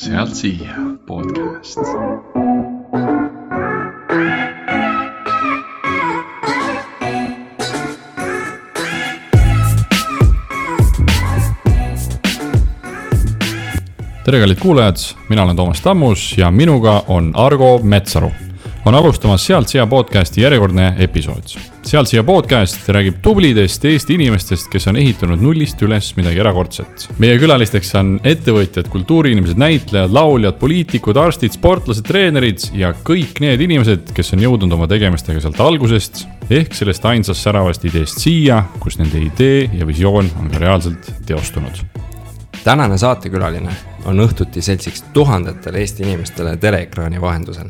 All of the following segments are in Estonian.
Sealt siia podcast. Tere kallid kuulajad, mina olen Toomas Tammus ja minuga on Argo Metsaru. On alustamas Sealt siia podcasti järjekordne episood. Sealt siia podcast räägib tublidest Eesti inimestest, kes on ehitanud nullist üles midagi erakordset. Meie külalisteks on ettevõtjad, kultuuriinimesed, näitlejad, lauljad, poliitikud, arstid, sportlased, treenerid ja kõik need inimesed, kes on jõudnud oma tegemistega sealt algusest ehk sellest ainsast säravast ideest siia, kus nende idee ja visioon on ka reaalselt teostunud. Tänane saatekülaline on õhtuti seltsiks tuhandetele Eesti inimestele teleekraani vahendusel.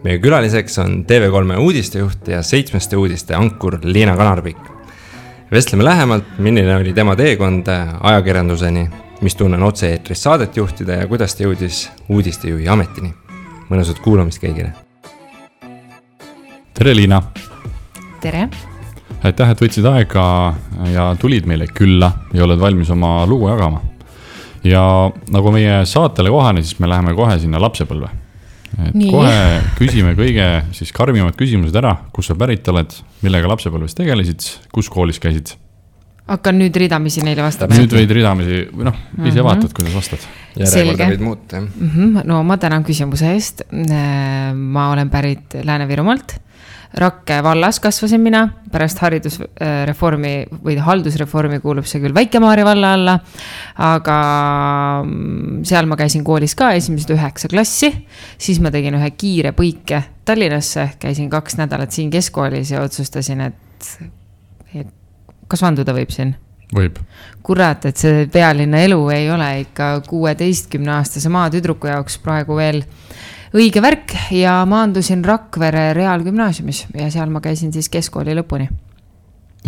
Meie külaliseks on TV3 uudistejuht ja 7 uudiste ankur Liina Kanarpik. Vestleme lähemalt, milline oli tema teekond ajakirjanduseni, mis tunnen otse-eetris saadet juhtida ja kuidas ta jõudis uudistejuhi ametini. Mõnusat kuulamist kõigile. Tere Liina! Tere! Aitäh, et võtsid aega ja tulid meile külla ja oled valmis oma lugu jagama. Ja nagu meie saatele kohane, siis me läheme kohe sinna lapsepõlve. Et kohe küsime kõige siis karmimad küsimused ära, kus sa pärit oled, millega lapsepõlves tegelesid, kus koolis käisid? Hakkan nüüd ridamisi neile vastama. Nüüd võid ridamisi, ise vaatad, kuidas vastad. Järjekorda võid muuta. No ma tänan küsimuse eest. Ma olen pärit Lääne-Virumaalt. Rakke vallas kasvasin mina, pärast haridusreformi või haldusreformi kuulub see küll Väike-Maarja valla alla, aga seal ma käisin koolis ka esimesed 9 klassi, siis ma tegin ühe kiire põike Tallinnasse, käisin 2 nädalat siin keskkoolis ja otsustasin, et kas vanduda võib siin? Võib. Kurat, et see pealinna elu ei ole ikka 16-aastase maatüdruku jaoks praegu veel õige värk ja maandusin Rakvere Reaalgümnaasiumis ja seal ma käisin siis keskkooli lõpuni.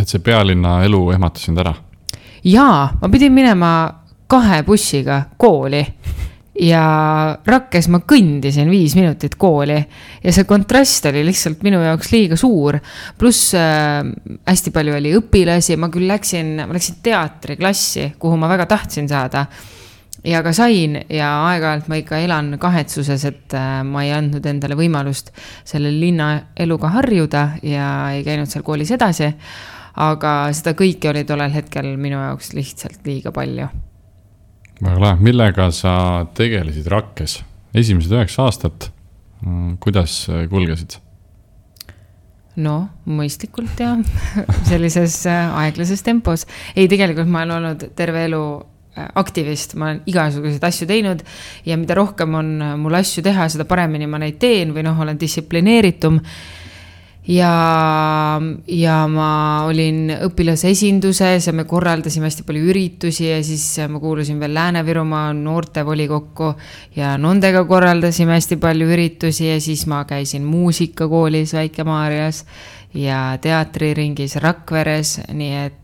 Et see pealinna elu ehmatas sind ära? Jaa, ma pidin minema 2 bussiga kooli ja Rakkes ma kõndisin 5 minutit kooli ja see kontrast oli lihtsalt minu jaoks liiga suur. Pluss hästi palju oli õpilasi, ma küll läksin teatriklassi, kuhu ma väga tahtsin saada. Ja ka sain ja aeg-ajalt ma ikka elan kahetsuses, et ma ei andnud endale võimalust selle linna eluga harjuda ja ei käinud seal koolis edasi, aga seda kõike oli tollel hetkel minu jaoks lihtsalt liiga palju. Väga lahe, millega sa tegelesid Rakkes? Esimesed 9 aastat, kuidas kulgesid? No, mõistlikult ja sellises aeglases tempos. Ei, tegelikult ma olen olnud terve elu aktivist, ma olen igasuguseid asju teinud ja mida rohkem on mul asju teha, seda paremini ma neid teen või olen distsiplineeritum ja ma olin õpilase esinduses ja me korraldasime hästi palju üritusi ja siis ma kuulusin veel Lääne-Virumaa noortevolikokku ja nendega korraldasime hästi palju üritusi ja siis ma käisin muusikakoolis Väike-Maarjas ja teatriringis Rakveres, nii et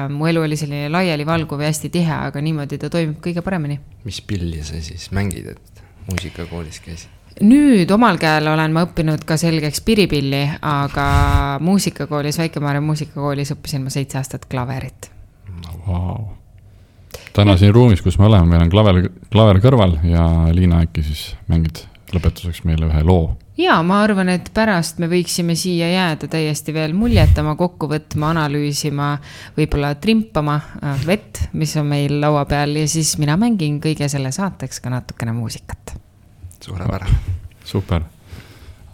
mu elu oli selline laiali valguv ja hästi tihe, aga niimoodi ta toimib kõige paremini. Mis pilli sa siis mängid, et muusikakoolis käisid? Nüüd omal käel olen ma õppinud ka selgeks piripilli, aga muusikakoolis, Väike-Maarja muusikakoolis õppisin ma 7 aastat klaverit. Wow. Täna siin ruumis, kus me oleme, meil on klaver kõrval ja Liina äkki siis mängid lõpetuseks meile ühe loo. Jaa, ma arvan, et pärast me võiksime siia jääda täiesti veel muljetama, kokku võtma, analüüsima, võib-olla trimpama vett, mis on meil laua peal ja siis mina mängin kõige selle saateks ka natukene muusikat. Suurepärane. Super.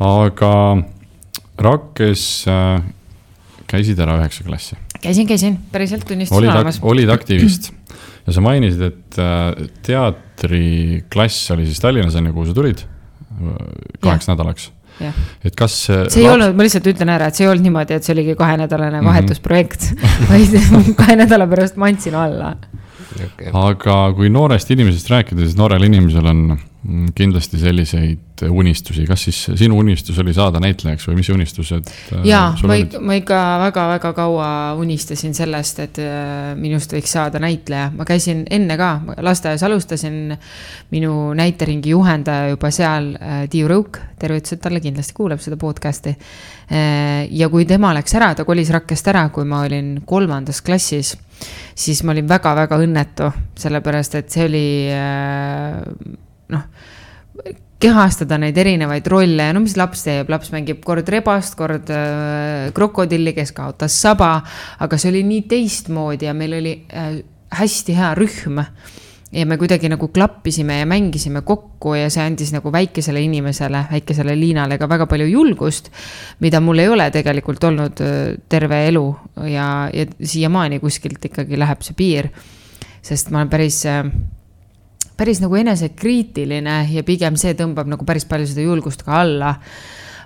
Aga Rakkes käisid ära 9 klassi? Käisin, päriselt tunnistus olemas. Olid aktivist ja sa mainisid, et teatriklass oli siis Tallinnas enne, kuhu sa tulid 8 nädalaks. Ja. Et kas see ei olnud, ma lihtsalt ütlen ära, et see ei olnud niimoodi, et see oligi 2-nädalane vahetusprojekt, vaid 2 nädala pärast ma andsin alla. Okay. Aga kui noorest inimesest rääkida, siis noorel inimesel on kindlasti selliseid unistusi. Kas siis sinu unistus oli saada näitlejaks või mis unistused Jaa, ma ikka väga-väga kaua unistasin sellest, et minust võiks saada näitleja. Ma käisin enne ka, lasteaias alustasin minu näiteringi juhendaja juba seal Tiiu Rõuk, tervitused talle kindlasti kuuleb seda podcasti. Ja kui tema läks ära, ta kolis Rakkest ära, kui ma olin 3. klassis, siis ma olin väga-väga õnnetu, sellepärast, et see oli kehastada neid erinevaid rolle, no mis laps teeb, laps mängib kord rebast, kord krokodilli, kes kaotas saba, aga see oli nii teistmoodi ja meil oli hästi hea rühm ja me kuidagi nagu klappisime ja mängisime kokku ja see andis nagu väikesele inimesele, väikesele Liinale ka väga palju julgust, mida mul ei ole tegelikult olnud terve elu ja siiamaani kuskilt ikkagi läheb see piir, sest ma olen päris nagu enesekriitiline ja pigem see tõmbab nagu päris palju seda julgust ka alla.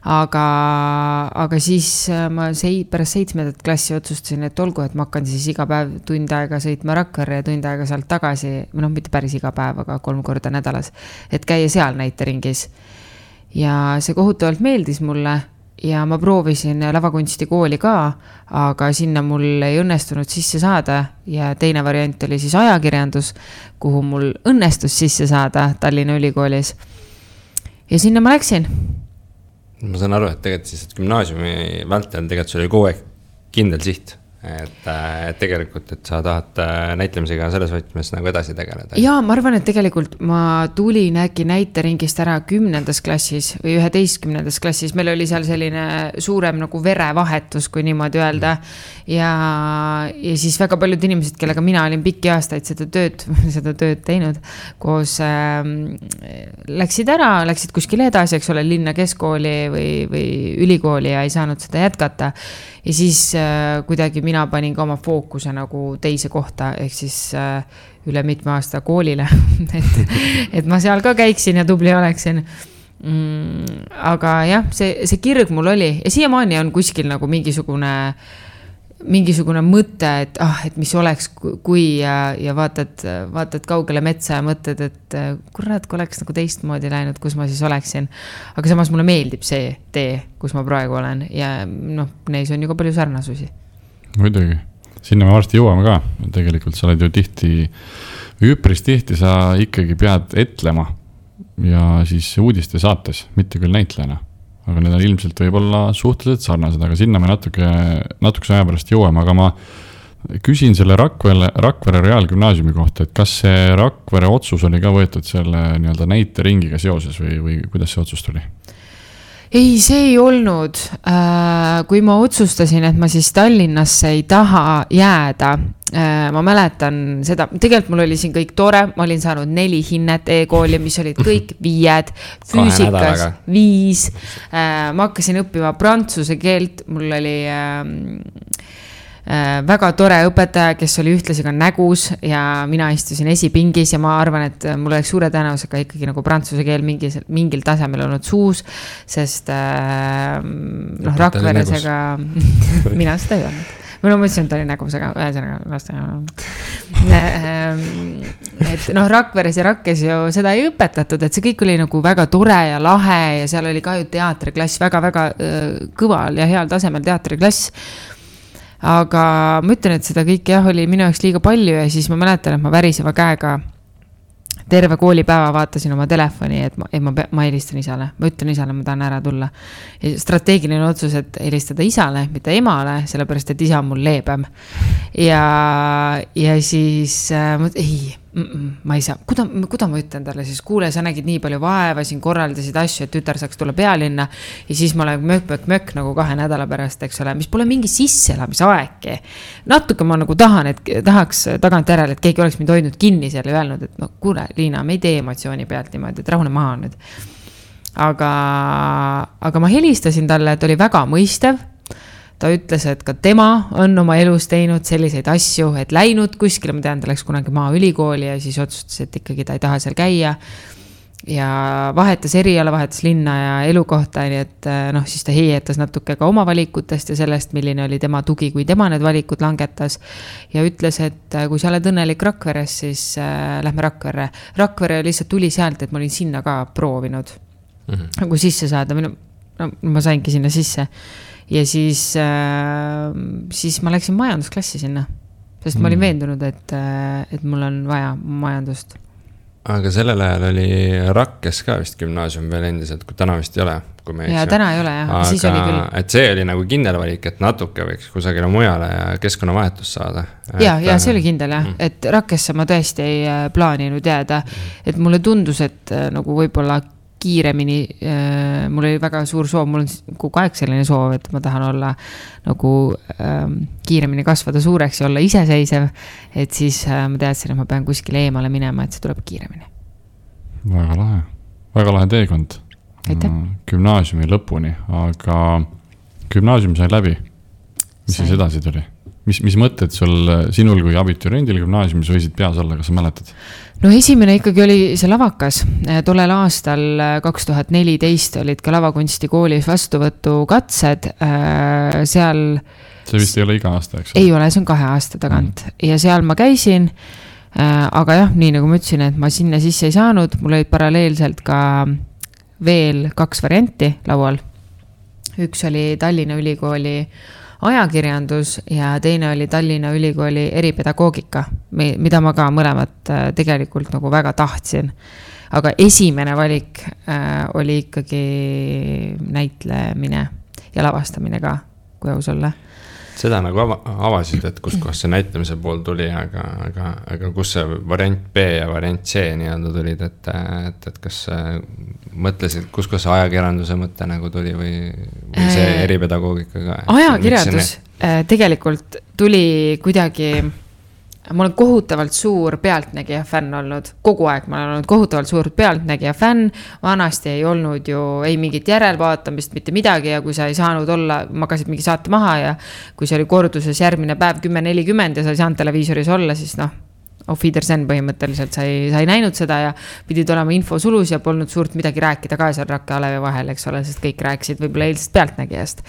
Aga siis ma pärast 7. klassi otsustasin, et olgu, et ma hakkan siis iga päev tund aega sõitma Rakverre ja tund aega sealt tagasi, mitte päris iga päev, aga 3 korda nädalas, et käia seal näiteringis. Ja see kohutavalt meeldis mulle ja ma proovisin lavakunstikooli ka, aga sinna mul ei õnnestunud sisse saada ja teine variant oli siis ajakirjandus, kuhu mul õnnestus sisse saada Tallinna Ülikoolis. Ja sinna ma läksin. Ma saan aru, et tegelikult siis gümnaasiumi vältel tegelikult sul oli kogu aeg kindel siht, et tegelikult, et sa tahad näitlemisega selles võtmes nagu edasi tegeleda. Jaa, ma arvan, et tegelikult ma tulin äkki näiteringist ära 10. klassis või 11. klassis. Meil oli seal selline suurem nagu verevahetus, kui niimoodi öelda. Ja siis väga paljud inimesed, kellega mina olin pikki aastaid seda tööd teinud, koos läksid ära, läksid kuskile edasi, eks ole, linna keskkooli või ülikooli ja ei saanud seda jätkata. Ja siis kuidagi mina panin ka oma fookuse nagu teise kohta, ehk siis üle mitme aasta koolile, et ma seal ka käiksin ja tubli oleksin. Aga jah, see kirg mul oli ja siiamaani on kuskil nagu mingisugune mõte, et mis oleks, kui ja vaatad kaugele metsa ja mõtled, et kurat, kui oleks nagu teistmoodi läinud, kus ma siis oleksin. Aga samas mulle meeldib see tee, kus ma praegu olen ja neis on ju ka palju sarnasusi. Muidugi, sinna me varsti jõuame ka. Tegelikult sa oled ju üpris tihti sa ikkagi pead etlema ja siis uudiste saates, mitte küll näitlejana. Aga need on ilmselt võib-olla suhteliselt sarnased, aga sinna me natukese aja pärast jõuame, aga ma küsin selle Rakvere Reaalgümnaasiumi kohta, et kas see Rakvere otsus oli ka võetud selle näiteringiga seoses või kuidas see otsus tuli? Ei, see ei olnud. Kui ma otsustasin, et ma siis Tallinnasse ei taha jääda, ma mäletan seda, tegelikult mul oli siin kõik tore, ma olin saanud 4 hinnet e-kooli, mis olid kõik 5, füüsikas 5, ma hakkasin õppima prantsuse keelt, mul oli väga tore õpetaja, kes oli ühtlasi ka nägus ja mina istusin esipingis ja ma arvan, et mul oleks suure tõenäosusega ikkagi nagu prantsuse keel mingil tasemel olnud suus, sest Rakveresega mina seda ei olnud. Ma mõtlesin, et ta oli nägus, aga et Rakveres ja Rakkes ju seda ei õpetatud, et see kõik oli nagu väga tore ja lahe ja seal oli ka ju teatriklass, väga-väga kõval ja heal tasemel teatriklass. Aga ma ütlen, et seda kõik oli minu jaoks liiga palju ja siis ma mäletan, et ma väriseva käega terve koolipäeva vaatasin oma telefoni, et ma helistan isale. Ma ütlen isale, ma tahan ära tulla. Ja strateegiline otsus, et helistada isale, mitte emale, sellepärast, et isa on mul leebem. Ja siis ma ei saa. Kuda ma ütlen talle siis? Kuule, sa nägid nii palju vaeva, siin korraldasid asju, et tütar saaks tulla pealinna. Ja siis ma olen mök nagu 2 nädala pärast, eks ole, mis pole mingi sisseelamisaegki. Natuke ma nagu tahaks tagant järele, et keegi oleks mind hoidnud kinni selle ja öelnud, et kuule, Liina, me ei tee emotsiooni pealt niimoodi, et rahune maha nüüd. Aga ma helistasin talle, et oli väga mõistev. Ta ütles, et ka tema on oma elus teinud selliseid asju, et läinud kuskile, ma tean, ta läks kunagi Maaülikooli ja siis otsustas, et ikkagi ta ei taha seal käia. Ja vahetas eriala, vahetas linna ja elukohta, nii et siis ta heietas natuke ka oma valikutest ja sellest, milline oli tema tugi, kui tema need valikud langetas. Ja ütles, et kui sa oled õnnelik Rakveres, siis lähme Rakverre. Rakvere lihtsalt tuli sealt, et ma olin sinna ka proovinud. Nagu sisse saada, ma saingi sinna sisse. Ja siis ma läksin majandusklassi sinna, sest ma olin veendunud, et mul on vaja majandust. aga sellel ajal oli Rakkes ka vist gümnaasium veel endiselt, kui täna vist ei ole. Ja täna ei ole jah, aga siis oli küll. Et see oli nagu kindel valik, et natuke võiks kusagile mujale ja keskkonnavahetust saada. Ja see oli kindel jah, et Rakkesse ma tõesti ei plaaninud jääda. Et mulle tundus, et nagu võib-olla kiiremini, mul oli väga suur soov, mul on kogu aeg selline soov, et ma tahan olla nagu kiiremini kasvada suureks ja olla iseseisev, et siis ma teadsin, et ma pean kuskile eemale minema, et see tuleb kiiremini. Väga lahe teekond. Gümnaasiumi lõpuni, aga gümnaasium sai läbi. Mis siis edasi tuli? Mis mõtted sinul kui abituriendil gümnaasiumis võisid peas olla, kas sa mäletad? No esimene ikkagi oli see lavakas. Tollel aastal 2014 olid ka lavakunsti koolis vastuvõtu katsed. Seal... See vist ei ole iga aasta, eks? Ei ole, see on 2 aasta tagant. Ja seal ma käisin, aga jah, nii nagu ma ütlesin, et ma sinna sisse ei saanud. Mul olid paralleelselt ka veel 2 varianti laual. Üks oli Tallinna Ülikooli ajakirjandus ja teine oli Tallinna Ülikooli eripedagoogika, mida ma ka mõlemat tegelikult nagu väga tahtsin. Aga esimene valik oli ikkagi näitlemine ja lavastamine ka, kui aus olla. Seda nagu avasid, et kus see näitlemise pool tuli, aga kus see variant B ja variant C nii-öelda tulid, et kas mõtlesid, kus see ajakirjanduse mõte nagu tuli või see eripedagoogika ka? Ajakirjandus tegelikult tuli kuidagi... Ma olen kohutavalt suur pealtnägija fänn olnud. Kogu aeg ma olen olnud kohutavalt suur pealtnägija fänn. Vanasti ei olnud ju ei mingit järelvaatamist, mitte midagi ja kui sa ei saanud olla, magasid mingi saate maha ja kui see oli korduses järgmine päev 10:40 ja sa ei saanud televiisoris olla, siis auf Wiedersehen põhimõtteliselt sa ei näinud seda ja pidid olema info sulus ja polnud suurt midagi rääkida ka seal Rakke Alevi vahel, eks ole, sest kõik rääkisid võib-olla eilsest pealtnägijast.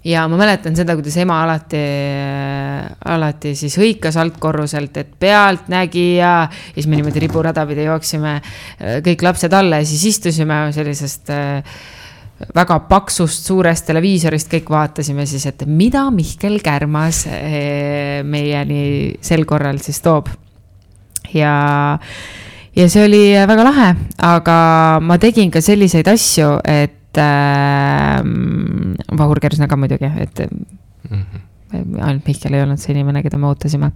Ja ma mäletan seda, kuidas ema alati siis hõikas altkorruselt, et pealtnägija ja siis me niimoodi riburadapidi jooksime kõik lapsed alla ja siis istusime sellisest väga paksust suurest televiisorist, kõik vaatasime siis, et mida Mihkel Kärmas meieni sel korral siis toob. Ja see oli väga lahe, aga ma tegin ka selliseid asju, et Vahur Kersna ka muidugi, et ainult Mihkel ei olnud see inimene, keda me ootasime.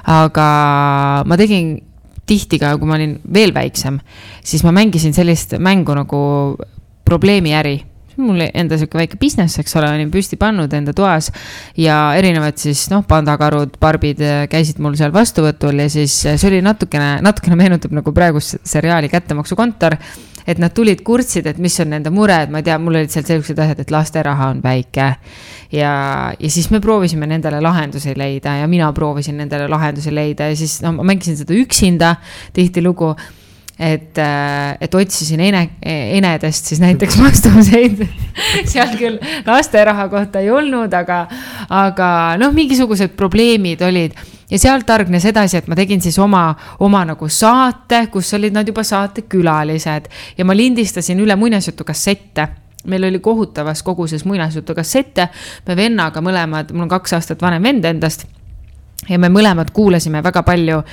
Aga ma tegin tihti ka, kui ma olin veel väiksem, siis ma mängisin sellist mängu nagu probleemiäri. Mul enda selline väike business, eks ole, olin püsti pannud enda toas ja erinevad siis, pandakarud, barbid käisid mul seal vastuvõtul ja siis see oli natukene meenutab nagu praegust seriaali Kättemaksukontor, et nad tulid kurtsid, et mis on nende mure, et ma ei tea, mul olid seal sellised asjad, et laste raha on väike ja siis me proovisime nendele lahendusi leida ja mina proovisin nendele lahendusi leida ja siis ma mängisin seda üksinda tihti lugu, et otsisin enedest siis näiteks vastuseid seal küll laste raha kohta ei olnud, aga mingisugused probleemid olid ja sealt targnes edasi, et ma tegin siis oma nagu saate, kus olid nad juba saate külalised ja ma lindistasin üle muinasjutu kassette. Meil oli kohutavas koguses muinasjutu kassette, me vennaga mõlemad, mul on 2 aastat vanem vend endast ja me mõlemad kuulasime väga palju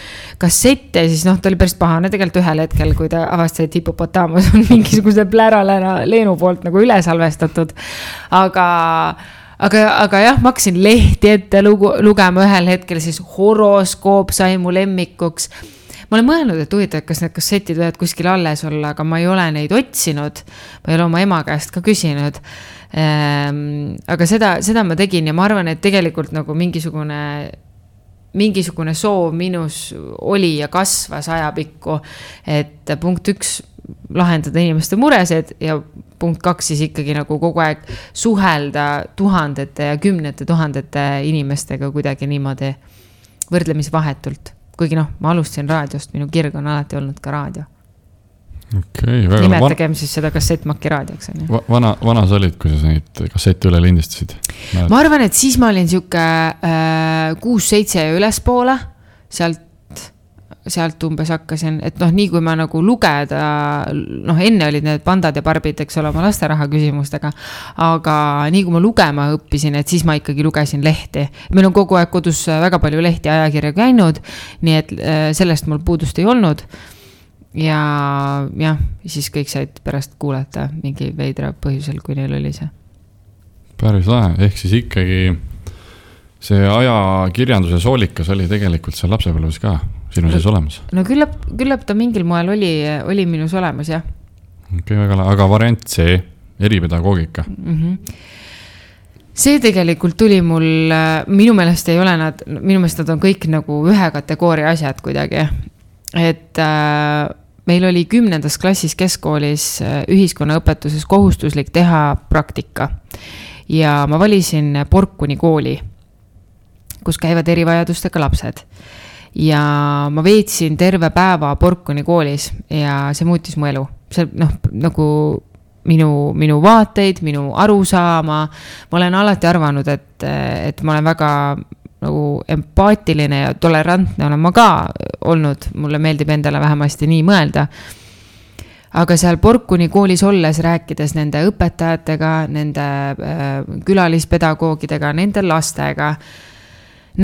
kassette ja siis ta oli päris pahane tegelikult ühel hetkel, kui ta avastas, et Hippopotamus on mingisuguse pläralena Leenu poolt nagu üle salvestatud. Aga jah, ma hakkasin lehti ette lugema ühel hetkel, siis horoskoop sai mu lemmikuks. Ma olen mõelnud, et huvitav, kas need kassetid võivad kuskil alles olla, aga ma ei ole neid otsinud. Ma ei ole oma ema käest ka küsinud. Aga seda ma tegin ja ma arvan, et tegelikult nagu mingisugune soov minus oli ja kasvas ajapikku, et punkt 1 lahendada inimeste muresed ja punkt 2 siis ikkagi nagu kogu aeg suhelda tuhandete ja 10 000 inimestega kuidagi niimoodi võrdlemisvahetult. Kuigi ma alustasin raadiost, minu kirg on alati olnud ka raadio. Okay, nimetagem siis seda kassettmaki raadioks. Vana sa olid, kui sa neid kassette üle lindistasid? Ma arvan, et siis ma olin siuke 6-7 ja ülespoole, sealt umbes hakkasin, et nii kui ma nagu lugeda, enne olid need pandad ja barbid, eks ole, oma lasteraha küsimustega, aga nii kui ma lugema õppisin, et siis ma ikkagi lugesin lehti. Meil on kogu aeg kodus väga palju lehti ajakirja käinud, nii et sellest mul puudust ei olnud. ja jah, siis kõik said pärast kuulata mingi veidra põhjusel, kui neil oli see. Päris lahe, ehk siis ikkagi see ajakirjanduse soolikas oli tegelikult seal lapsepõlves ka sinu sees olemas? No küllap ta mingil moel oli minus olemas, jah. Okei, väga lahe, aga variant C, eripedagoogika. See tegelikult tuli mul, minu meelest ei ole minu meelest nad on kõik nagu ühe kategooria asjad kuidagi. Et meil oli 10. klassis keskkoolis ühiskonnaõpetuses kohustuslik teha praktika. Ja ma valisin Porkuni kooli, kus käivad erivajadustega lapsed. Ja ma veetsin terve päeva Porkuni koolis ja see muutis mu elu. See nagu minu vaateid, minu arusaama. Ma olen alati arvanud, et ma olen väga nagu empaatiline ja tolerantne olen ma ka olnud. Mulle meeldib endale vähemasti nii mõelda. Aga seal Porkuni koolis olles rääkides nende õpetajatega, nende külalispedagoogidega, nende lastega,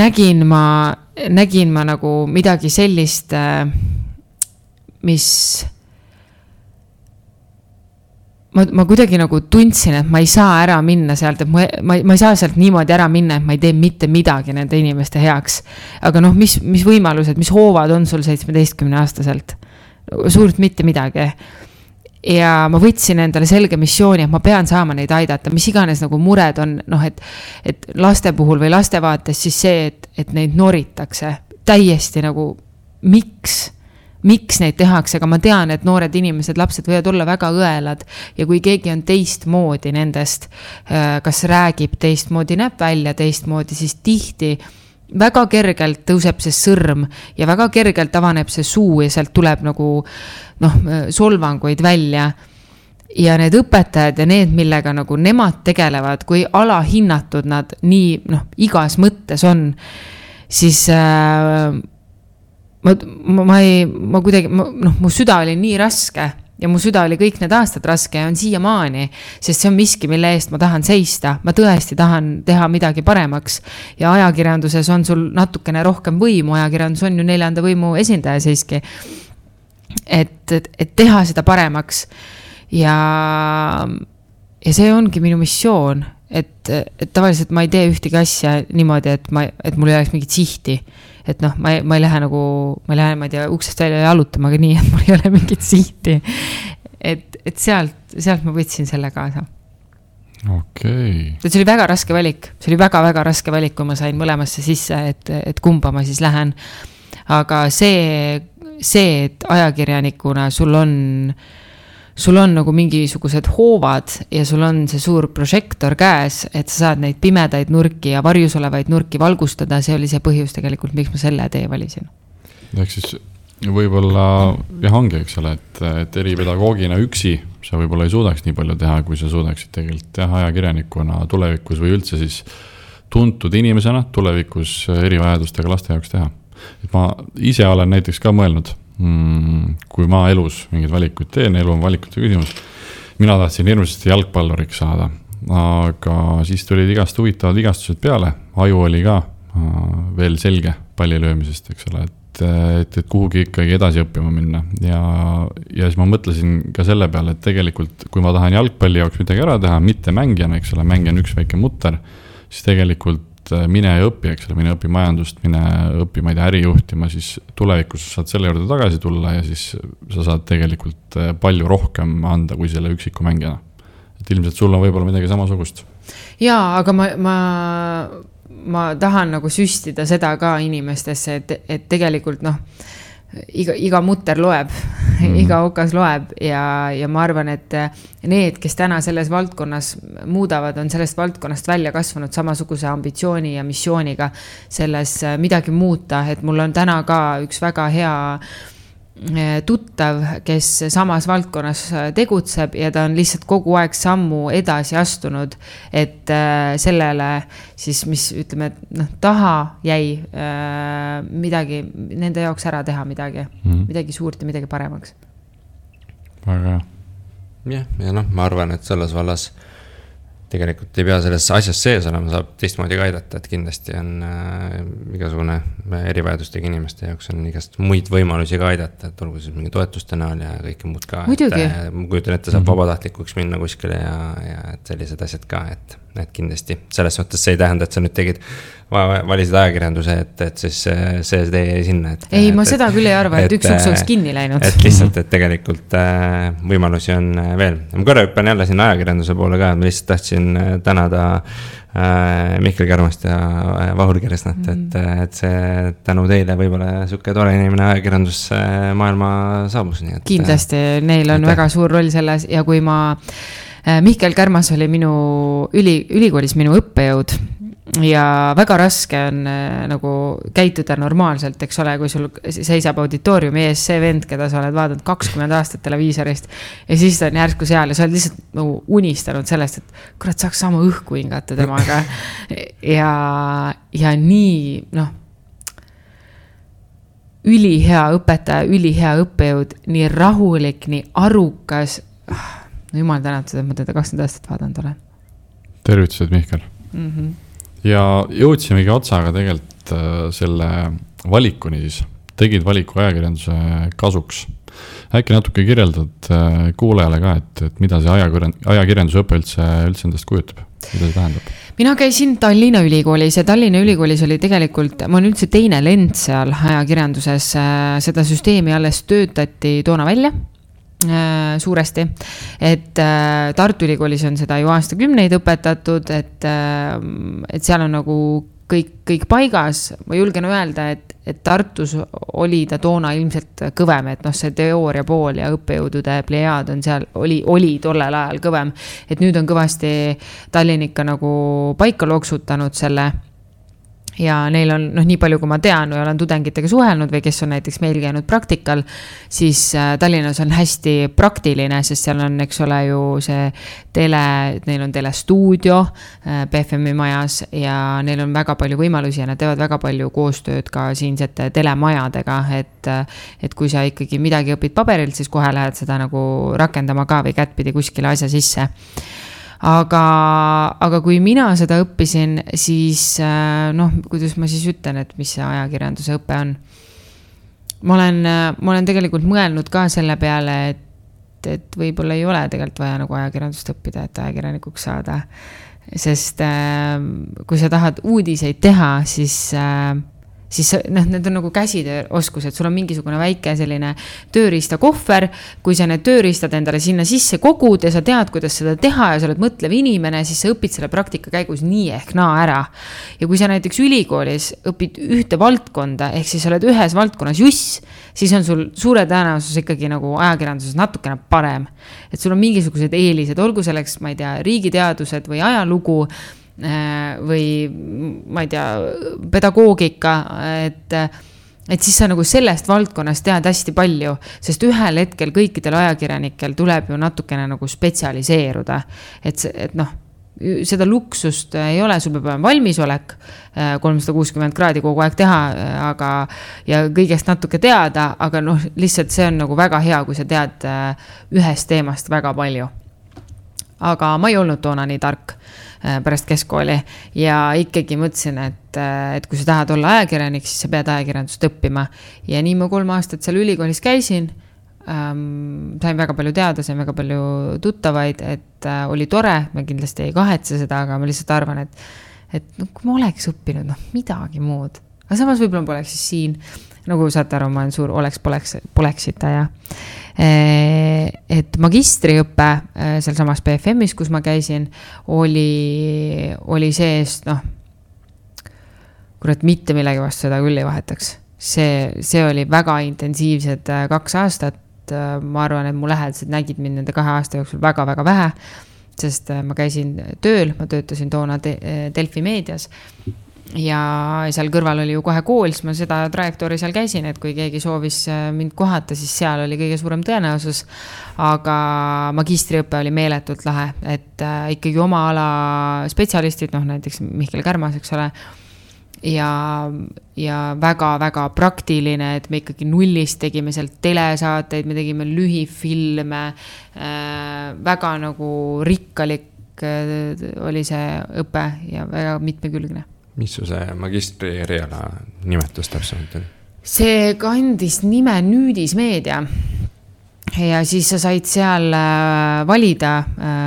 nägin ma nagu midagi sellist, mis ma kuidagi nagu tundsin, et ma ei saa ära minna sealt, et ma ei saa sealt niimoodi ära minna, et ma ei tee mitte midagi nende inimeste heaks. Aga mis võimalused, mis hoovad on sul 17-aastaselt? Suurt mitte midagi. Ja ma võtsin endale selge missiooni, et ma pean saama neid aidata, mis iganes nagu mured on, et laste puhul või laste vaates siis see, et neid noritakse täiesti nagu miks neid tehakse, aga ma tean, et noored inimesed, lapsed võivad olla väga õelad ja kui keegi on teistmoodi nendest, kas räägib teistmoodi, näeb välja teistmoodi, siis tihti väga kergelt tõuseb see sõrm ja väga kergelt avaneb see suu ja sealt tuleb nagu solvanguid välja. Ja need õpetajad ja need, millega nagu nemad tegelevad, kui alahinnatud nad nii igas mõttes on, siis ma kuidagi, mu süda oli nii raske ja mu süda oli kõik need aastad raske ja on siiamaani, sest see on miski, mille eest ma tahan seista. Ma tõesti tahan teha midagi paremaks ja ajakirjanduses on sul natukene rohkem võimu, ajakirjandus on ju 4. võimu esindaja siiski, et teha seda paremaks ja see ongi minu missioon, et tavaliselt ma ei tee ühtegi asja niimoodi, et mul ei oleks mingit sihti. Et ma ei lähe nagu, ma ei tea, uksest välja jalutama, aga nii, et mul ei ole mingit sihti. Et sealt ma võtsin selle kaasa. Okei. See oli väga raske valik. See oli väga-väga raske valik, kui ma sain mõlemasse sisse, et kumba ma siis lähen. Aga see, et ajakirjanikuna sul on nagu mingisugused hoovad ja sul on see suur prožektor käes, et sa saad neid pimedaid nurki ja varjus olevaid nurki valgustada, see oli see põhjus tegelikult, miks ma selle tee valisin. Ehk siis võib-olla ongi, eks ole, et eripedagoogina üksi sa võib-olla ei suudaks nii palju teha, kui sa suudaksid tegelikult teha ajakirjanikuna tulevikus või üldse siis tuntud inimesena tulevikus erivajadustega laste jaoks teha. Et ma ise olen näiteks ka mõelnud, kui ma elus mingid valikuid teen, elu on valikute küsimus. Mina tahtsin hirmsasti jalgpalluriks saada, aga siis tulid igast huvitavad vigastused peale. Aju oli ka veel selge pallilöömisest, eks ole, et kuhugi ikkagi edasi õppima minna. Ja siis ma mõtlesin ka selle peale, et tegelikult kui ma tahan jalgpalli jaoks midagi ära teha, mitte mängijana, eks ole, mängija on üks väike mutter, siis tegelikult mine ja õpi, eks ole, mine õpi majandust, mine õpi, ma ei tea, äri juhtima, siis tulevikus saad selle juurde tagasi tulla ja siis sa saad tegelikult palju rohkem anda kui selle üksiku mängijana. Et ilmselt sul on võib-olla midagi samasugust. Jaa, aga ma tahan nagu süstida seda ka inimestesse, et tegelikult iga mutter loeb, iga okas loeb ja ma arvan, et need, kes täna selles valdkonnas muudavad, on sellest valdkonnast välja kasvanud samasuguse ambitsiooni ja missiooniga selles midagi muuta, et mul on täna ka üks väga hea tuttav, kes samas valdkonnas tegutseb ja ta on lihtsalt kogu aeg sammu edasi astunud, et sellele siis, mis ütleme, taha jäi midagi, nende jaoks ära teha midagi suurt ja midagi paremaks. Väga hea. Ja ma arvan, et selles vallas tegelikult ei pea selles asjas sees olema, saab teistmoodi ka aidata, et kindlasti on igasugune erivajadustega inimeste jaoks on igast muid võimalusi ka aidata, et olgu siis mingi toetuste näol ja kõike muud ka. Muidugi. Ma kujutan ette, saab vabatahtlikuks minna kuskile ja et sellised asjad ka, et kindlasti. Selles mõttes see ei tähenda, et sa nüüd tegid, valisid ajakirjanduse, et siis see tee sinna. Ei, ma seda küll ei arva, et üks uks oleks kinni läinud. Et lihtsalt, et tegelikult võimalusi on veel. Ma korra hüppan jälle sinna ajakirjanduse poole ka, ma lihtsalt tahtsin tänada Mihkel Kärmast ja Vahur Keresnat, et see tänu teile võib-olla suke tore inimene ajakirjandus maailma saabus. Nii et, kindlasti, neil on väga suur roll selles ja kui Mihkel Kärmas oli ülikoolis minu õppejõud ja väga raske on nagu käituda normaalselt, eks ole, kui sul seisab auditooriumi ees see vend, keda sa oled vaadanud 20 aastat televiisorist ja siis ta on järsku seal ja sa oled lihtsalt nagu unistanud sellest, et kurat saaks sama õhku hingata temaga ja nii, ülihea õpetaja, ülihea õppejõud, nii rahulik, nii arukas. Jumal tänatud, et ma teda 20 aastat vaadanud olen. Tervitused, Mihkel. Ja jõudsimegi otsaga tegelikult selle valikuni siis. Tegid valiku ajakirjanduse kasuks. Äkki natuke kirjeldad kuulajale ka, et mida see ajakirjanduse õpe üldse endast kujutab? Mida see tähendab? Mina käisin Tallinna ülikoolis ja Tallinna ülikoolis oli tegelikult, ma olen üldse teine lend seal ajakirjanduses, seda süsteemi alles töötati toona välja suuresti, et Tartu ülikoolis on seda ju aastakümneid õpetatud, et seal on nagu kõik paigas. Ma julgen öelda, et Tartus oli ta toona ilmselt kõvem, et see teooria pool ja õppejõudude plejaad on seal, oli tollel ajal kõvem, et nüüd on kõvasti Tallinn ikka nagu paika loksutanud selle. Ja neil on, nii palju kui ma tean või olen tudengitega suhelnud või kes on näiteks meil käinud praktikal, siis Tallinnas on hästi praktiline, sest seal on, eks ole ju see neil on telestuudio BFM-i majas ja neil on väga palju võimalusi ja nad teevad väga palju koostööd ka siinsete telemajadega, et kui sa ikkagi midagi õpid paberilt, siis kohe lähed seda nagu rakendama ka või kättpidi kuskile asja sisse. Aga kui mina seda õppisin, siis kuidas ma siis ütlen, et mis see ajakirjanduse õpe on. Ma olen tegelikult mõelnud ka selle peale, et võib-olla ei ole tegelikult vaja nagu ajakirjandust õppida, et ajakirjanikuks saada. Sest kui sa tahad uudiseid teha, siis need on nagu käsitööoskused, sul on mingisugune väike selline tööriista kohver, kui sa need tööriistad endale sinna sisse kogud ja sa tead, kuidas seda teha ja sa oled mõtlev inimene, siis sa õpid selle praktika käigus nii ehk naa ära. Ja kui sa näiteks ülikoolis õpid ühte valdkonda, ehk siis oled ühes valdkonnas juss, siis on sul suure tõenäosus ikkagi nagu ajakirjanduses natukene parem. Et sul on mingisugused eelised, olgu selleks, ma ei tea, riigiteadused või ajalugu, või ma ei tea, pedagoogika, et siis sa nagu sellest valdkonnast tead hästi palju, sest ühel hetkel kõikidel ajakirjanikel tuleb ju natukene nagu spetsialiseeruda, et seda luksust ei ole, sul peab olema valmisolek 360 kraadi kogu aeg teha, ja kõigest natuke teada, aga lihtsalt see on nagu väga hea, kui sa tead ühest teemast väga palju. Aga ma ei olnud toona nii tark pärast keskkooli ja ikkagi mõtlesin, et kui sa tahad olla ajakirjanik, siis sa pead ajakirjandust õppima. Ja nii ma 3 aastat seal ülikoolis käisin, sain väga palju teada, sain väga palju tuttavaid, et oli tore, ma kindlasti ei kahetse seda, aga ma lihtsalt arvan, et kui ma oleks õppinud midagi muud, aga samas võib-olla ma poleks siis siin, nagu saate aru, ma olen suur poleksita ja et magistriõppe seal samas BFM-is, kus ma käisin, oli sees, kurat mitte millegi vastu seda küll ei vahetaks. See oli väga intensiivsed 2 aastat. Ma arvan, et mu lähedased nägid mind nende 2 aasta jooksul väga-väga vähe, sest ma käisin tööl, ma töötasin toona Delfi meedias ja seal kõrval oli ju kohe kool, siis ma seda trajektoori seal käisin, et kui keegi soovis mind kohata, siis seal oli kõige suurem tõenäosus, aga magistriõppe oli meeletult lahe, et ikkagi oma ala spetsialistid, näiteks Mihkel Kärmas, eks ole, ja väga-väga praktiline, et me ikkagi nullist tegime seal telesaateid, me tegime lühifilme, väga nagu rikkalik oli see õpe ja väga mitmekülgne. Mis su see magistri eriala nimetus täpsemalt on? See kandis nime Nüüdismeedia ja siis sa said seal valida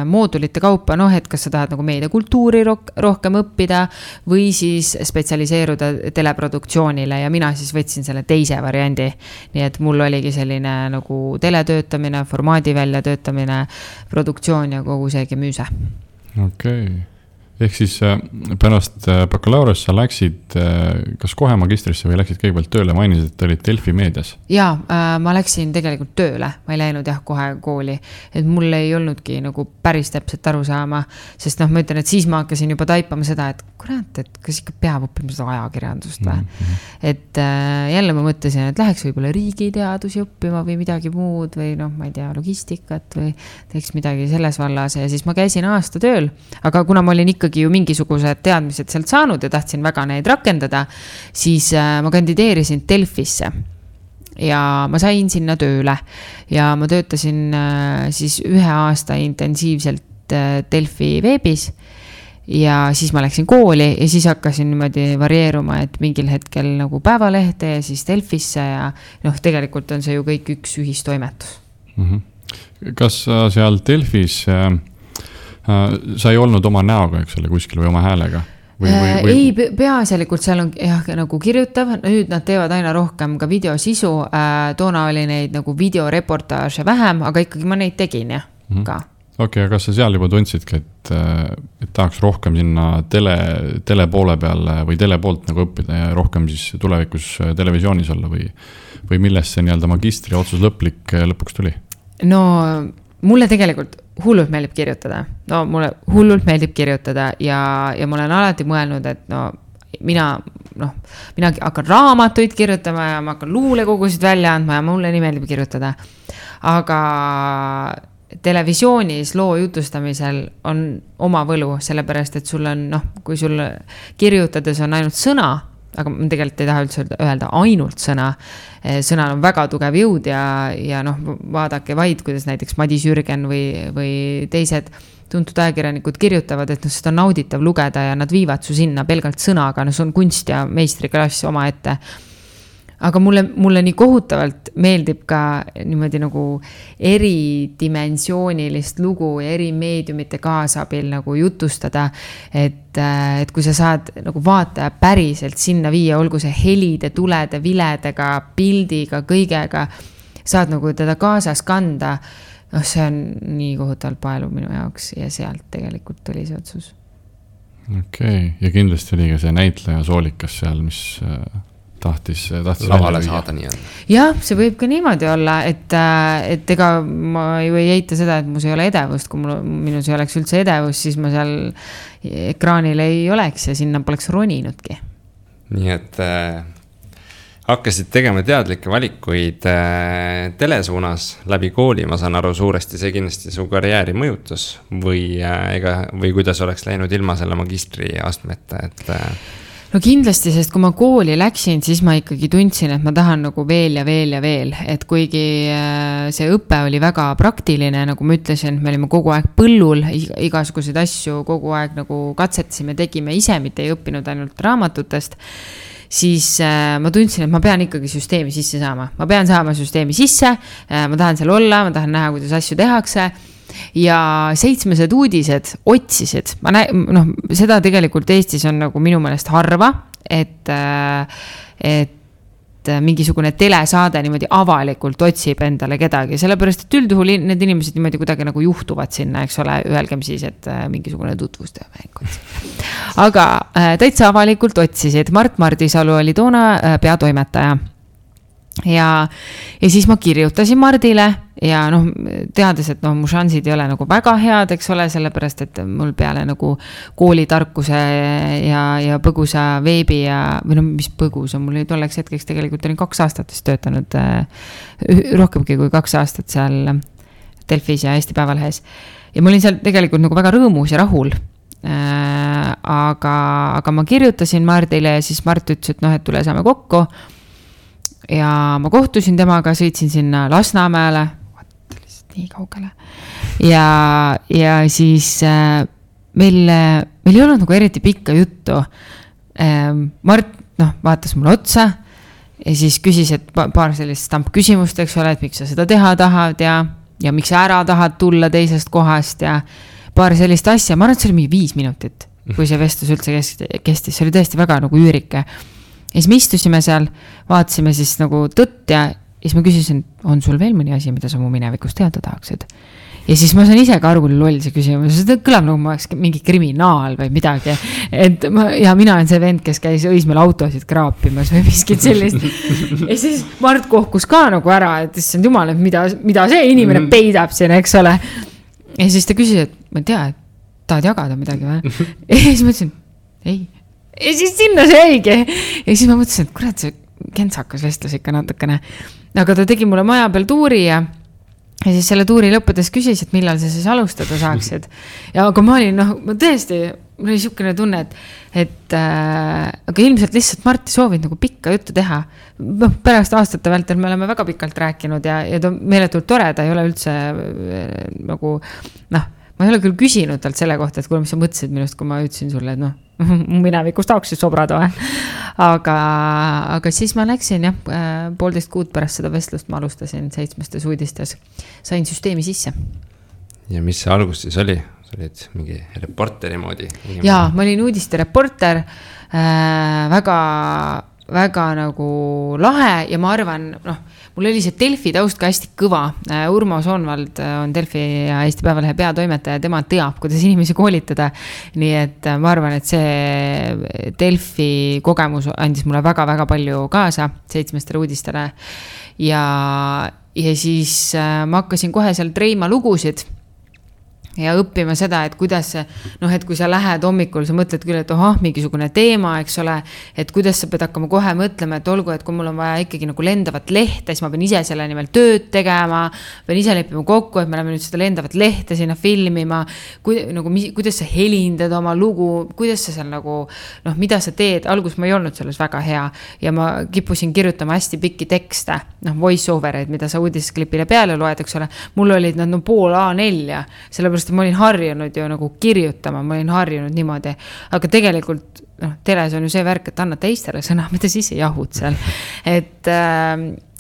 moodulite kaupa, et kas sa tahad nagu meediakultuuri rohkem õppida või siis spetsialiseeruda teleproduktsioonile ja mina siis võtsin selle teise variandi. Nii et mul oligi selline nagu teletöötamine, formaadi väljatöötamine, produktsioon ja kogu see gemüüse. Okei. Ehk siis pärast bakalaureus sa läksid kas kohe magistrisse või läksid kõigepealt tööle, mainisid, et olid Delfi meedias? Jaa, ma läksin tegelikult tööle, ma ei läinud kohe kooli, et mul ei olnudki nagu päris täpselt aru saama, sest ma ütlen, et siis ma hakkasin juba taipama seda, et kurat, et kas ikka peab õppima seda ajakirjandust või. Et jälle ma mõtlesin, et läheks võib-olla riigiteadusi õppima või midagi muud või ma ei tea, logistikat või teeks midagi selles vallas ja siis ma käisin aasta tööl, aga kuna ma olin ikkagi ju mingisugused teadmised sealt saanud ja tahtsin väga neid rakendada, siis ma kandideerisin Delfisse ja ma sain sinna tööle ja ma töötasin siis 1 aasta intensiivselt Delfi veebis ja siis ma läksin kooli ja siis hakkasin niimoodi varieeruma, et mingil hetkel nagu Päevalehte ja siis Delfisse ja tegelikult on see ju kõik üks ühistoimetus. Kas seal Delfis sa ei olnud oma näoga, eks ole, kuskil või oma häälega? Ei, peaasjalikult seal on nagu kirjutav, nüüd nad teevad aina rohkem ka videosisu, toona oli neid nagu videoreportaaže vähem, aga ikkagi ma neid tegin ka. Okei, aga kas sa seal juba tundsidki, et tahaks rohkem sinna tele poole peal või tele poolt nagu õppida ja rohkem siis tulevikus televisioonis olla või millest see nii-öelda magistri otsus lõpuks tuli? No mulle tegelikult hullult meeldib kirjutada. Mulle hullult meeldib kirjutada ja ma olen alati mõelnud, et mina hakkan raamatuid kirjutama ja ma hakkan luulekogusid välja andma ja mulle nii meeldib kirjutada. Aga televisioonis loo jutustamisel on oma võlu, sellepärast, et sul on, kui sul kirjutades on ainult sõna, aga ma tegelikult ei taha üldse öelda ainult sõna. Sõnal on väga tugev jõud ja vaadake vaid, kuidas näiteks Madis Jürgen või teised tuntud ajakirjanikud kirjutavad, et seda on nauditav lugeda ja nad viivad su sinna pelgalt sõnaga, see on kunst ja meistriklass oma ette. Aga mulle nii kohutavalt meeldib ka niimoodi nagu eridimensioonilist lugu ja eri meediumite kaasabil nagu jutustada, et kui sa saad nagu vaataja päriselt sinna viia, olgu see helide, tulede, viledega, pildiga, kõigega, saad nagu teda kaasas kanda, see on nii kohutavalt paelu minu jaoks ja sealt tegelikult oli see otsus. Okei, ja kindlasti oli ka see näitleja Soolikas seal, mis tahtis lavale saada nii on. Jah, see võib ka niimoodi olla, et ega ma ju ei eita seda, et mus ei ole edevust, kui minus ei oleks üldse edevust, siis ma seal ekraanil ei oleks ja sinna poleks roninudki. Nii et hakkasid tegema teadlikke valikuid telesuunas läbi kooli, ma saan aru suuresti, see kindlasti su karjääri mõjutus või kuidas oleks läinud ilma selle magistri astmeta, et No kindlasti, sest kui ma kooli läksin, siis ma ikkagi tundsin, et ma tahan nagu veel ja veel ja veel, et kuigi see õpe oli väga praktiline, nagu ma ütlesin, me olime kogu aeg põllul, igasuguseid asju kogu aeg nagu katsetasime, tegime ise, mitte ei õppinud ainult raamatutest, siis ma tundsin, et ma pean ikkagi süsteemi sisse saama. Ma pean saama süsteemi sisse, ma tahan seal olla, ma tahan näha, kuidas asju tehakse. Ja 7 uudised otsisid, seda tegelikult Eestis on nagu minu meelest harva, et mingisugune telesaade niimoodi avalikult otsib endale kedagi, sellepärast, et üldjuhul need inimesed niimoodi kuidagi nagu juhtuvad sinna, eks ole, ühelgem siis, et mingisugune tutvustaja mäng. Aga täitsa avalikult otsisid, Mart Mardisalu oli toona peatoimetaja. Ja siis ma kirjutasin Mardile ja teades, et mu šansid ei ole nagu väga head, eks ole, sellepärast, et mul peale nagu koolitarkuse ja põgusa veebi või mis põgus on, mul tolleks hetkeks tegelikult olin 2 aastat töötanud, rohkemgi kui 2 aastat seal Delfis ja Eesti Päevalehes ja ma olin seal tegelikult nagu väga rõõmus ja rahul. Aga ma kirjutasin Mardile ja siis Mart ütles, et tule saame kokku. Ja ma kohtusin temaga, sõitsin sinna Lasnamäele, nii kaugele. Ja siis meil ei olnud nagu eriti pikka juttu. Mart vaatas mulle otsa ja siis küsis, et paar sellist stampküsimust, eks ole, et miks sa seda teha tahad ja miks sa ära tahad tulla teisest kohast ja paar sellist asja. Ma arvan, et see oli mingi 5 minutit, kui see vestlus üldse kestis. See oli tõesti väga nagu üürike. Ja siis me istusime seal, vaatasime siis nagu tõtt ja siis ma küsisin, on sul veel mõni asi, mida sa mu minevikust teada tahaksid? Ja siis ma sain ise ka aru, kui loll see küsimus. See kõlab nagu ma oleks mingi kriminaal või midagi. Ja mina olen see vend, kes käis Õismäel autosid kraapimas või miskit sellist. Ja siis Mart kohkus ka nagu ära, et issand jumal, et mida see inimene peidab siin, eks ole. Ja siis ta küsis, et ma ei tea, et tahad jagada midagi või? Ja siis ma ütlesin, ei. Ja siis sinna see jäigi. Ja siis ma mõtlesin, et kurat, see kentsakas vestlus ikka natukene. Aga ta tegi mulle maja peal tuuri ja siis selle tuuri lõppudes küsis, et millal sa siis alustada saaksid. Ja aga ma olin, ma tõesti, mul oli siukene tunne, et aga ilmselt lihtsalt Mart soovid nagu pikka juttu teha. Pärast aastate vältel me oleme väga pikalt rääkinud ja ta meeletult tore, ta ei ole üldse nagu, ma ei ole küll küsinud talt selle kohta, et kuule, mis sa mõtlesid minust, kui ma ütlesin sulle, et minevikust tahaks siis sobrada või. Aga siis ma läksin 1,5 kuud pärast seda vestlust ma alustasin 7 uudistes. Sain süsteemi sisse. Ja mis see algus siis oli? Sa olid mingi reporteri moodi? Jaa, ma olin uudiste reporter, väga nagu lahe ja ma arvan, mul oli see Delfi taust ka hästi kõva. Urmo Soonvald on Delfi ja Eesti Päevalehe peatoimetaja, tema teab, kuidas inimesi koolitada. Nii et ma arvan, et see Delfi kogemus andis mulle väga-väga palju kaasa 7 uudistele. Ja siis ma hakkasin kohe seal treima lugusid ja õppima seda, et kuidas et kui sa lähed hommikul, sa mõtled küll, et mingisugune teema, eks ole, et kuidas sa pead hakkama kohe mõtlema, et olgu, et kui mul on vaja ikkagi nagu lendavat lehte, siis ma pean ise selle nimel tööd tegema, pean ise leppima kokku, et me oleme nüüd seda lendavat lehte sinna filmima, kuidas sa helindad oma lugu, kuidas sa seal nagu, mida sa teed, algus ma ei olnud selles väga hea ja ma kippusin kirjutama hästi pikki tekste, voice over'id, mida sa uudisklipile peale loed, eks ole, mul olid nad pool A4, sellepärast ma olin harjunud ju nagu kirjutama, ma olin harjunud niimoodi, aga tegelikult teles on ju see värk, et annad teistele sõna, mida siis ei jahud seal, et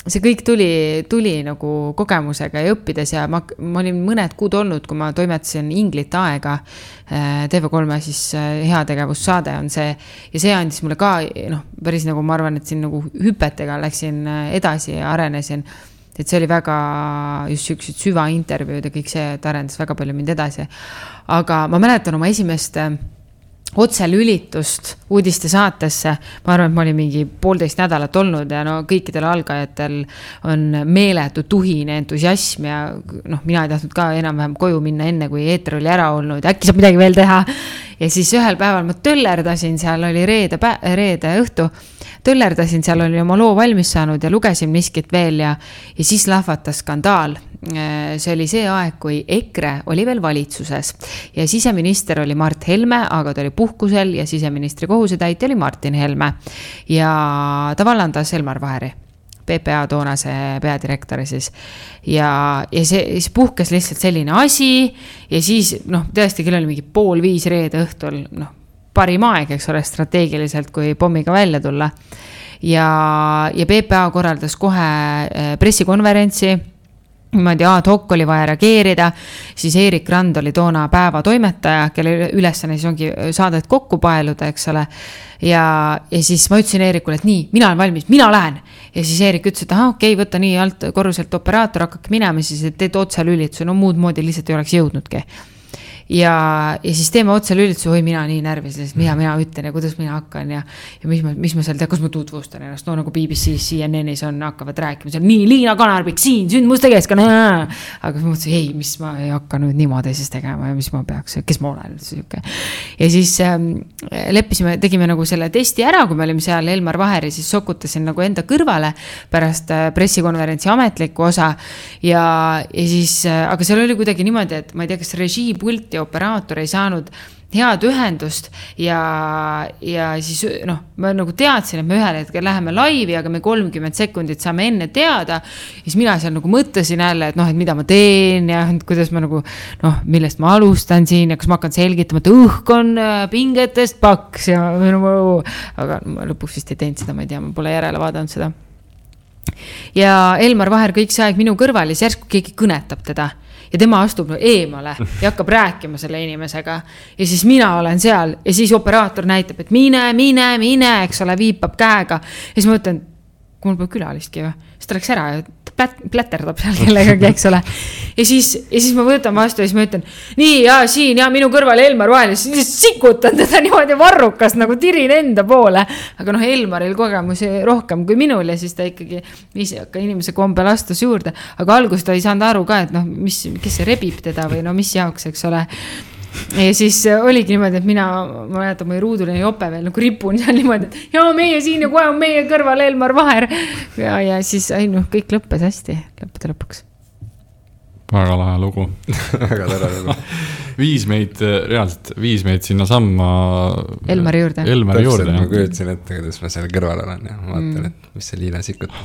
see kõik tuli nagu kogemusega ja õppides ja ma olin mõned kuud olnud, kui ma toimetasin Inglit aega, TV3 siis heategevussaade on see ja see andis mulle ka, päris nagu ma arvan, et siin nagu hüpetega läksin edasi ja arenesin. Et see oli väga just süksed süvaintervjuud ja kõik see, et arendas väga palju mind edasi. Aga ma mäletan oma esimest otselülitust uudiste saatesse. Ma arvan, et ma olin mingi 1,5 nädalat olnud ja kõikidel algajatel on meeletu tuhine entusiasm ja mina ei tahtnud ka enam-vähem koju minna enne, kui eeter oli ära olnud. Äkki saab midagi veel teha. Ja siis ühel päeval ma töllerdasin, seal oli reede õhtu, töllerdasin, seal oli oma loo valmis saanud ja lugesin miskit veel ja siis lahvatas skandaal. See oli see aeg, kui EKRE oli veel valitsuses ja siseminister oli Mart Helme, aga ta oli puhkusel ja siseministri kohusetäitja oli Martin Helme ja ta vallandas Elmar Vaheri, PPA toonase peadirektori siis. Ja see puhkes lihtsalt selline asi ja siis tõesti küll oli mingi 4:30 reede õhtul, parim aeg, eks ole, strateegiliselt, kui pommiga välja tulla. Ja PPA korraldas kohe pressikonverentsi, niimoodi ad hoc oli vaja reageerida, siis Eerik Rand oli toona päeva toimetaja, kelle ülesanne siis ongi saadet kokku paeluda, eks ole. Ja siis ma ütlesin Eerikule, et nii, mina olen valmis, mina lähen. Ja siis Eerik ütles, et okei, võtta nii alt korruselt operaator, hakkake minema, siis teed otselülituse, muud moodi lihtsalt ei oleks jõudnudki. Ja siis teeme otselülituse, oi mina nii närvis, mida mina ütlen ja kuidas mina hakkan ja mis ma seal tean, kus ma tutvustan ennast, nagu BBC, CNN-is hakkavad rääkima seal, nii Liina Kanarbik siin, sündmuste keskkonna, aga ma mõtlesin, ei, mis ma ei hakka nüüd niimoodi siis tegema ja mis ma peaks, kes ma olen üldse. Ja siis leppisime, tegime nagu selle testi ära, kui me olime seal Elmar Vaheri, siis sokutasin nagu enda kõrvale pärast pressikonverentsi ametlikku osa ja siis, aga seal oli kuidagi niimoodi, et ma ei tea, kas režiipult operaator ei saanud head ühendust ja siis ma nagu teadsin, et me ühel hetkel läheme laivi, aga me 30 sekundit saame enne teada. Ja siis mina seal nagu mõtlesin jälle, et mida ma teen ja kuidas ma nagu, millest ma alustan siin ja kas ma hakkan selgitama, et õhk on pingetest paks ja aga ma lõpuks vist ei teinud seda, ma ei tea, ma pole järele vaadanud seda. Ja Elmar Vaher kõik see aeg minu kõrval ja järsku keegi kõnetab teda. Ja tema astub eemale ja hakkab rääkima selle inimesega. Ja siis mina olen seal ja siis operaator näitab, et mine, eks ole, viipab käega. Ja siis ma mõtlen, kui mul pole külalistki või, siis ta läks ära ja pläterdab seal kellegagi, eks ole. Ja siis ma võtan vastu ja siis ma ütlen, nii ja siin ja minu kõrval Elmar Vaher, siis sikutan teda niimoodi varrukas, nagu tirin enda poole. Aga Elmaril kogemusi rohkem kui minul ja siis ta ikkagi ka inimese kombel astus juurde. Aga alguses ta ei saanud aru ka, et kes see rebib teda või mis jaoks, eks ole. Ja siis oligi niimoodi, et ma mäletan, mu ruuduline jope veel nagu ripun seal niimoodi, et meie siin ja kohe on meie kõrval Elmar Vaher. Ja siis kõik lõppes hästi, lõppude lõpuks. Väga lahe lugu. Väga tore lugu. Viis meid sinna samma Elmari juurde. Täpselt, ma kujutasin ette, kuidas ma seal kõrval olen ja vaatan, et mis see Liina sikutab.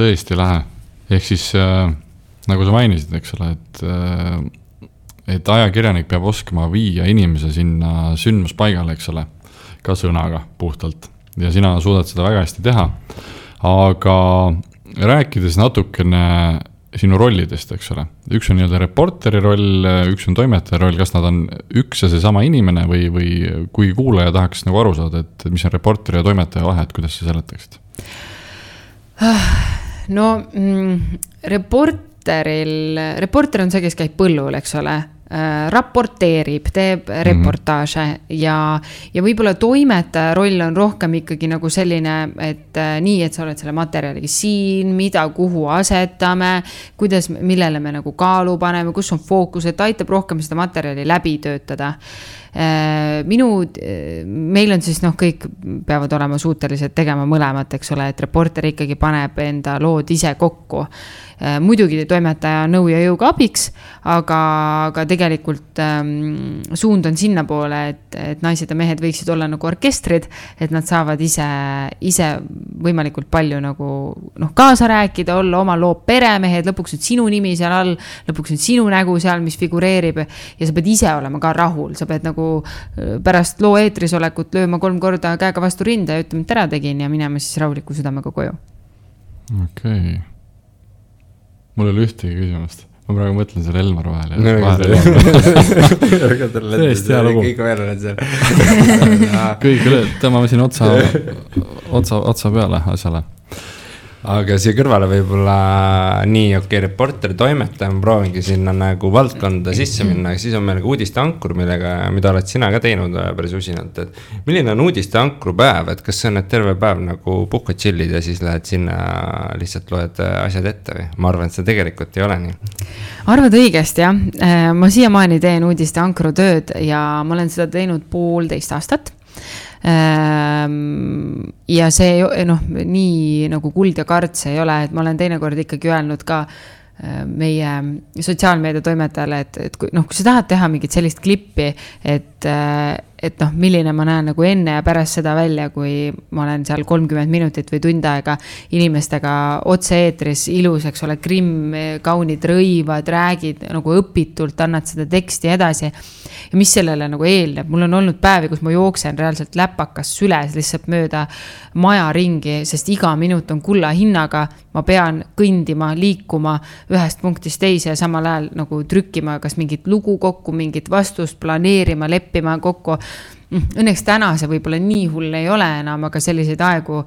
Tõesti lahe. Ehk siis nagu sa mainisid, eks ole, et ajakirjanik peab oskama viia inimese sinna sündmuspaigale, eks ole, ka sõnaga puhtalt. Ja sina suudad seda väga hästi teha. Aga rääkides natukene sinu rollidest, eks ole. Üks on nii-öelda reporteri roll, üks on toimetaja roll, kas nad on üks ja see sama inimene või kui kuulaja tahaks nagu aru saada, et mis on reporteri ja toimetaja vahe, et kuidas sa seletaksid? Reporter on see, kes käib põllul, eks ole, raporteerib, teeb reportaaže ja võib-olla toimetaja roll on rohkem ikkagi nagu selline, et nii, et sa oled selle materjaliga siin, mida, kuhu asetame, millele me nagu kaalu paneme, kus on fookus, et aitab rohkem seda materjali läbi töötada. Meil on siis kõik peavad olema suutelised tegema mõlemat, eks ole, et reporter ikkagi paneb enda lood ise kokku. Muidugi toimetaja nõu ja jõuga abiks, aga tegelikult suund on sinna poole, et naised ja mehed võiksid olla nagu orkestrid, et nad saavad ise võimalikult palju nagu kaasa rääkida, olla oma loo peremehed, lõpuks on sinu nimi seal all, lõpuks on sinu nägu seal, mis figureerib ja sa pead ise olema ka rahul, sa pead nagu pärast loo eetris olekut lööma 3 korda käega vastu rinda ja ütlema, et ära tegin ja minema siis rahuliku südamega koju. Okei. Mul oli ühtegi küsimust. Ma praegu mõtlen selle Elmar vahel. Tõesti hea lugu. Kõik veel oled seal. Kõik üle, tõmbame siin otsa peale asjale. Aga siia kõrvale võib-olla nii reporter, toimetaja, ma proovingi sinna nagu valdkonda sisse minna, aga siis on meil ka uudiste ankur, mida oled sina ka teinud päris usinalt, et milline on uudiste ankru päev, et kas see on terve päev nagu puhkad chillid ja siis lähed sinna lihtsalt loed asjad ette või? Ma arvan, et see tegelikult ei ole nii. Arvad õigesti, jah. Ma siiamaani teen uudiste ankru tööd ja ma olen seda teinud 1,5 aastat. Ja see nii nagu kuld ja karts ei ole, et ma olen teinekord ikkagi öelnud ka meie sotsiaalmeedia toimetajale, et kui sa tahad teha mingit sellist klippi, et milline ma näen nagu enne ja pärast seda välja, kui ma olen seal 30 minutit või tund aega inimestega otse eetris ilus, eks ole, grimm, kaunid rõivad, räägid nagu õpitult, annad seda teksti edasi ja mis sellele nagu eelneb. Mul on olnud päevi, kus ma jooksen reaalselt läpakas süles lihtsalt mööda maja ringi, sest iga minut on kulla hinnaga, ma pean kõndima, liikuma ühest punktist teise ja samal ajal nagu trükkima kas mingit lugu kokku, mingit vastust planeerima, leppima kokku. Õnneks täna see võib-olla nii hull ei ole enam, aga selliseid aegu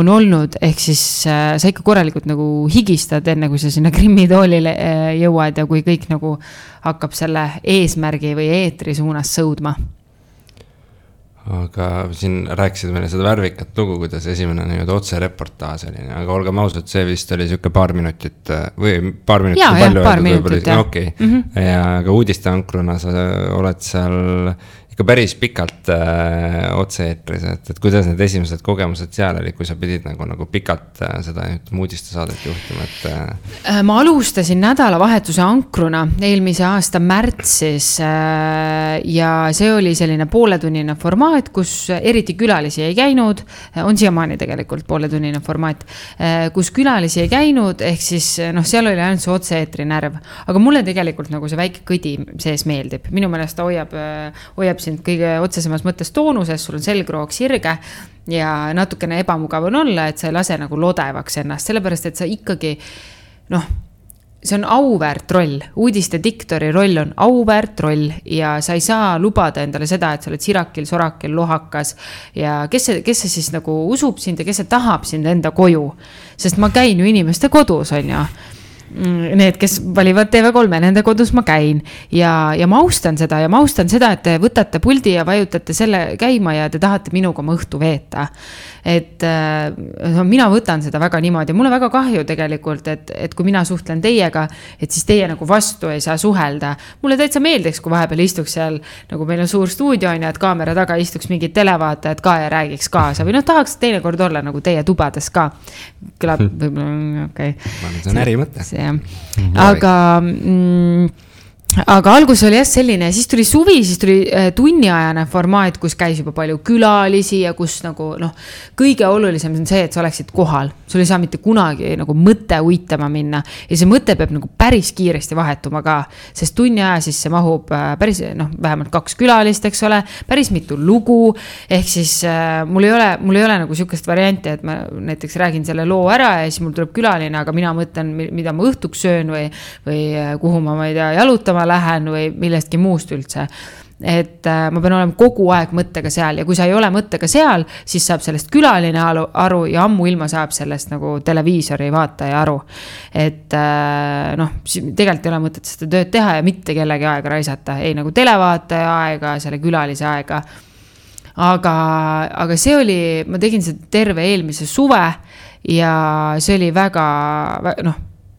on olnud, ehk siis sa ikka korralikult nagu higistad enne, kui sa sinna grimmitoolile jõuad ja kui kõik nagu hakkab selle eesmärgi või eetri suunas sõudma. Aga siin rääkisid meile seda värvikat lugu, kuidas esimene otse reportaas oli, aga olgem ausad, see vist oli siuke paar minutit või paar minutit ja, palju. Paar minutit, jah. Okay. Ja aga uudiste ankruna sa oled seal ikka päris pikalt otse-eetris, et kuidas need esimesed kogemused seal oli, kui sa pidid nagu pikalt seda uudistesaadet juhtima, et ma alustasin nädalavahetuse ankruna eelmise aasta märtsis ja see oli selline pooletunnine formaat, kus eriti külalisi ei käinud, on siiamaani tegelikult pooletunnine formaat, kus külalisi ei käinud, ehk siis seal oli ainult see otse-eetri närv, aga mulle tegelikult nagu see väike kõdi sees meeldib, minu meelest ta hoiab sind kõige otsesemas mõttes toonuses, sul on selgroog sirge ja natukene ebamugav on olla, et sa ei lase nagu lodevaks ennast, sellepärast, et sa ikkagi, see on auväärt roll, uudiste diktori roll on auväärt roll ja sa ei saa lubada endale seda, et sa oled sirakil, sorakil, lohakas ja kes see siis nagu usub sind ja kes see tahab sind enda koju, sest ma käin ju inimeste kodus, on ju. Need, kes valivad TV3, nende kodus ma käin ja ma austan seda, et te võtate puldi ja vajutate selle käima ja te tahate minuga oma õhtu veeta. Et mina võtan seda väga niimoodi. Mulle väga kahju tegelikult, et kui mina suhtlen teiega, et siis teie nagu vastu ei saa suhelda. Mulle täitsa meeldiks, kui vahepeal istuks seal, nagu meil on suur stuudio, ja et kaamera taga istuks mingid televaatajad ka ja räägiks kaasa. Või tahaks teinekord olla nagu teie tubades ka. Kõlab võib-olla, okei. See on ärimõte. Aga algus oli selline, siis tuli suvi, siis tuli tunniajane formaat, kus käis juba palju külalisi ja kus nagu kõige olulisem on see, et sa oleksid kohal. Sul ei saa mitte kunagi nagu mõte uitama minna ja see mõte peab nagu päris kiiresti vahetuma ka, sest tunni aja sisse mahub päris vähemalt 2 külalist, eks ole, päris mitu lugu, ehk siis mul ei ole nagu sükest varianti, et ma näiteks räägin selle loo ära ja siis mul tuleb külaline, aga mina mõtlen, mida ma õhtuks söön või kuhu ma ei tea, jalutama lähen või millestki muust üldse. Et ma pean olema kogu aeg mõttega seal ja kui sa ei ole mõttega seal, siis saab sellest külaline aru ja ammu ilma saab sellest nagu televiisori vaataja aru. Et tegelikult ei ole mõtet seda tööd teha ja mitte kellegi aega raisata, ei nagu televaataja aega, selle külalise aega. Aga see oli, ma tegin seda terve eelmise suve ja see oli väga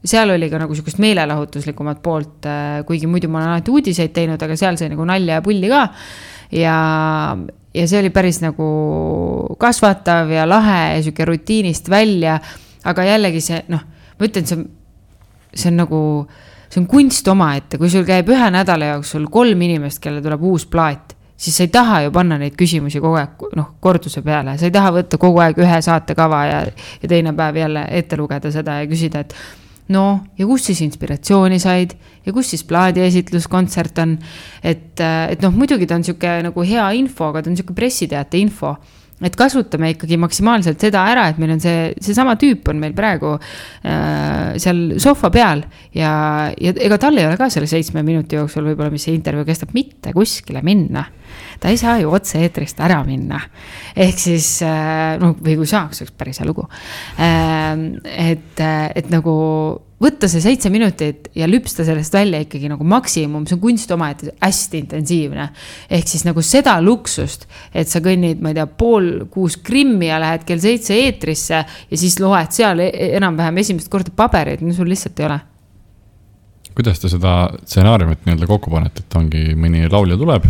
seal oli ka nagu sükust meelelahutuslikumat poolt, kuigi muidu ma olen alati uudiseid teinud, aga seal sai nagu nalja ja pulli ka. Ja see oli päris nagu kasvatav ja lahe ja süke rutiinist välja, aga jällegi see, ma ütlen, see on nagu, see on kunst omaette, kui sul käib 1 nädala jooksul 3 inimest, kelle tuleb uus plaat, siis sa ei taha ju panna neid küsimusi kogu aeg korduse peale, sa ei taha võtta kogu aeg 1 saatekava ja teine päev jälle ette lugeda seda ja küsida, et ja kus siis inspiratsiooni said ja kus siis plaadi esitluskontsert on, et muidugi ta on siuke nagu hea info, aga ta on siuke pressiteate info, et kasutame ikkagi maksimaalselt seda ära, et meil on see sama tüüp on meil praegu seal sohva peal ja ega tal ei ole ka selle 7 minuti jooksul võib-olla, mis see intervjuu kestab, mitte kuskile minna. Ta ei saa ju otse eetrist ära minna. Ehk siis, või kui saaks, oleks päris hea lugu. Et nagu võtta see 7 minutit ja lüpsta sellest välja ikkagi nagu maksimum, see on kunst oma, et hästi intensiivne. Ehk siis nagu seda luksust, et sa kõnnid, ma ei tea, 5:30 Krimmi ja lähed kell 7 eetrisse ja siis loed seal enam-vähem esimest korda pabereid, sul lihtsalt ei ole. Kuidas te seda stsenaariumit nii-öelda kokku panete, et ongi mõni laulja tuleb,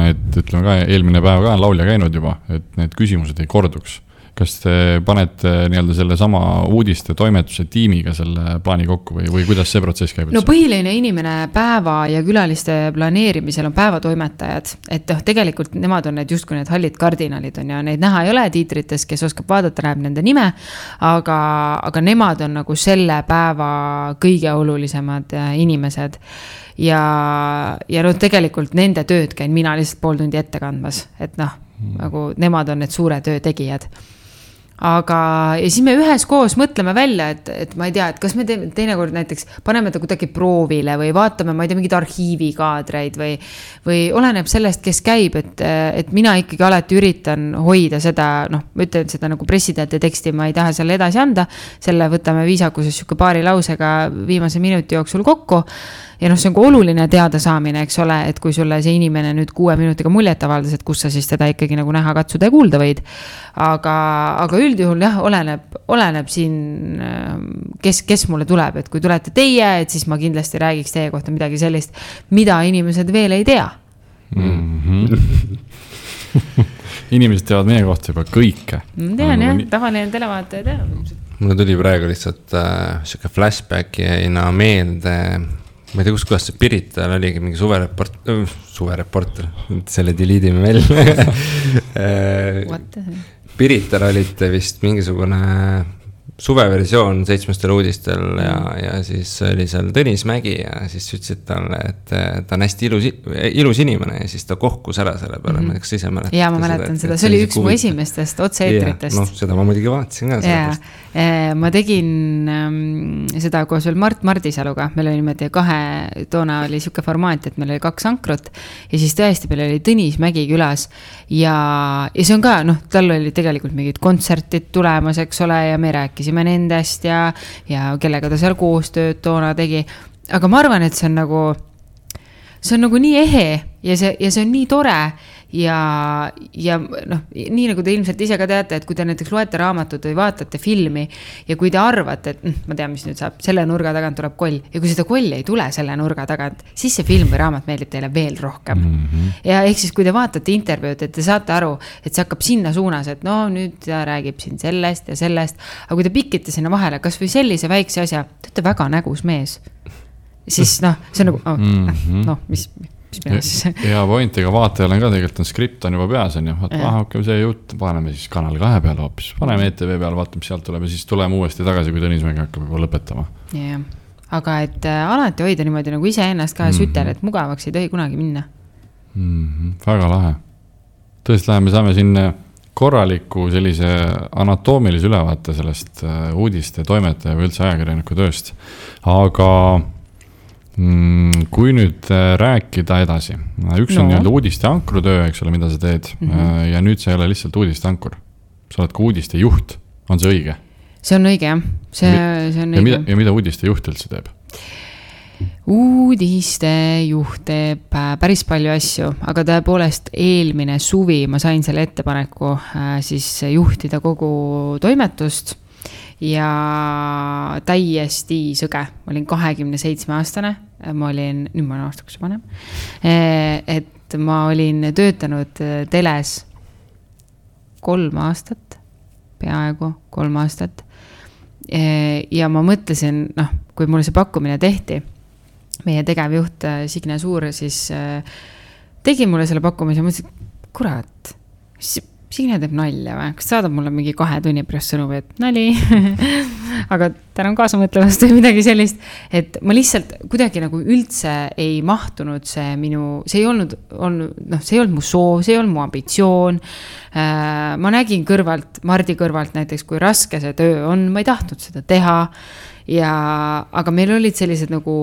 et ütleme ka eelmine päev ka on laulja käinud juba, et need küsimused ei korduks. Kas te panete nii-öelda selle sama uudiste toimetuse tiimiga selle plaani kokku või kuidas see protsess käib? Põhiline inimene päeva ja külaliste planeerimisel on päevatoimetajad, et tegelikult nemad on need justkui need hallid kardinalid on ja neid näha ei ole tiitrites, kes oskab vaadata, näeb nende nime, aga nemad on nagu selle päeva kõige olulisemad inimesed ja tegelikult nende tööd käin mina lihtsalt pool tundi ette kandmas, et nagu nemad on need suure töö tegijad. Aga ja siis me üheskoos mõtleme välja, et ma ei tea, et kas me teinekord näiteks paneme ta kuidagi proovile või vaatame, ma ei tea, mingid arhiivikaadreid või oleneb sellest, kes käib, et mina ikkagi alati üritan hoida seda, ma ütlen seda nagu pressiteate teksti, ma ei taha selle edasi anda, selle võtame viisakuses siuke paari lausega viimase minuti jooksul kokku ja see on ka oluline teada saamine, eks ole, et kui sulle see inimene nüüd 6 minutiga muljet avaldas, et kus sa siis teda ikkagi nagu näha, katsuda ja kuulda võid. Aga üldjuhul jah, oleneb siin, kes mulle tuleb, et kui tulete teie, et siis ma kindlasti räägiks teie kohta midagi sellist, mida inimesed veel ei tea. inimesed teavad meie kohta juba kõike. Ma tean jah, tavaline televaataja teab. Mulle tuli praegu lihtsalt siuke flashbacki jäina meelde, ma ei tea, kuidas see Pirital oligi mingi suvereporter, selle deleedime välja. Pirital olite vist mingisugune suveversioon 7 uudistel ja siis oli seal Tõnis Mägi ja siis ütlesid talle, et ta on hästi ilus inimene ja siis ta kohkus ära selle peale, ma ei tea, kas ise mäletate. Ja ma mäletan seda, see oli üks mu esimestest otse-eetritest. Noh, seda ma muidugi vaatasin ka. Ma tegin seda koos veel Mart Mardisaluga, meil oli niimoodi toona oli siuke formaat, et meil oli 2 ankrut ja siis tõesti meil oli Tõnis Mägi külas ja see on ka, tal oli tegelikult mingid kontsertid tulemas, eks ole, ja me rääkisime nendest ja kellega ta seal koostööd toona tegi, aga ma arvan, et see on nagu nii ehe ja see on nii tore ja nii nagu te ilmselt ise ka teate, et kui te näiteks loete raamatut või vaatate filmi ja kui te arvate, et ma tean, mis nüüd saab, selle nurga tagant tuleb koll ja kui seda kolli ei tule selle nurga tagant, siis see film või raamat meeldib teile veel rohkem. Ja ehk siis, kui te vaatate intervjuud, et te saate aru, et see hakkab sinna suunas, et nüüd ta räägib siin sellest ja sellest, aga kui te pikite sinna vahele, kas või sellise väikse asja, te olete väga nägus mees, siis see on nagu, mis ja point, ega vaatajal on ka tegelikult on skript on juba peas on ju, hakkame see jutt, paneme siis Kanal 2 peale hoopis, paneme ETV peale, vaatame, mis sealt tuleb ja siis tuleme uuesti tagasi, kui Tõnis Mägi hakkab juba lõpetama. Yeah. Aga et alati hoida niimoodi nagu ise ennast ka sütel, et mugavaks ei tohi kunagi minna. Väga lahe. Tõesti läheme, saame siin korraliku sellise anatoomilise ülevaate sellest uudiste toimetaja või üldse ajakirjaniku tööst, aga kui nüüd rääkida edasi, üks on nii-öelda uudiste ankrutöö, eks ole, mida sa teed ja nüüd sa ei ole lihtsalt uudiste ankur, sa oled ka uudiste juht, on see õige? See on õige, jah, see on õige. Ja mida uudiste juht üldse teeb? Uudiste juht teeb päris palju asju, aga tõepoolest eelmine suvi ma sain selle ettepaneku siis juhtida kogu toimetust ja täiesti sõge. Ma olin 27-aastane, nüüd ma olen aastaks vanem, et ma olin töötanud teles 3 aastat, peaaegu 3 aastat. Ja ma mõtlesin, kui mulle see pakkumine tehti, meie tegevjuht Signe Suur siis tegi mulle selle pakkumise ja mõtlesin, kurat, Signe teeb nalja või? Kas saadab mulle mingi 2 tunni pärast sõnumi, et nali, aga tänan kaasa mõtlevast või midagi sellist, et ma lihtsalt kuidagi nagu üldse ei mahtunud see ei olnud mu soov, see ei olnud mu ambitsioon. Ma nägin Mardi kõrvalt näiteks, kui raske see töö on, ma ei tahtnud seda teha, aga meil olid sellised nagu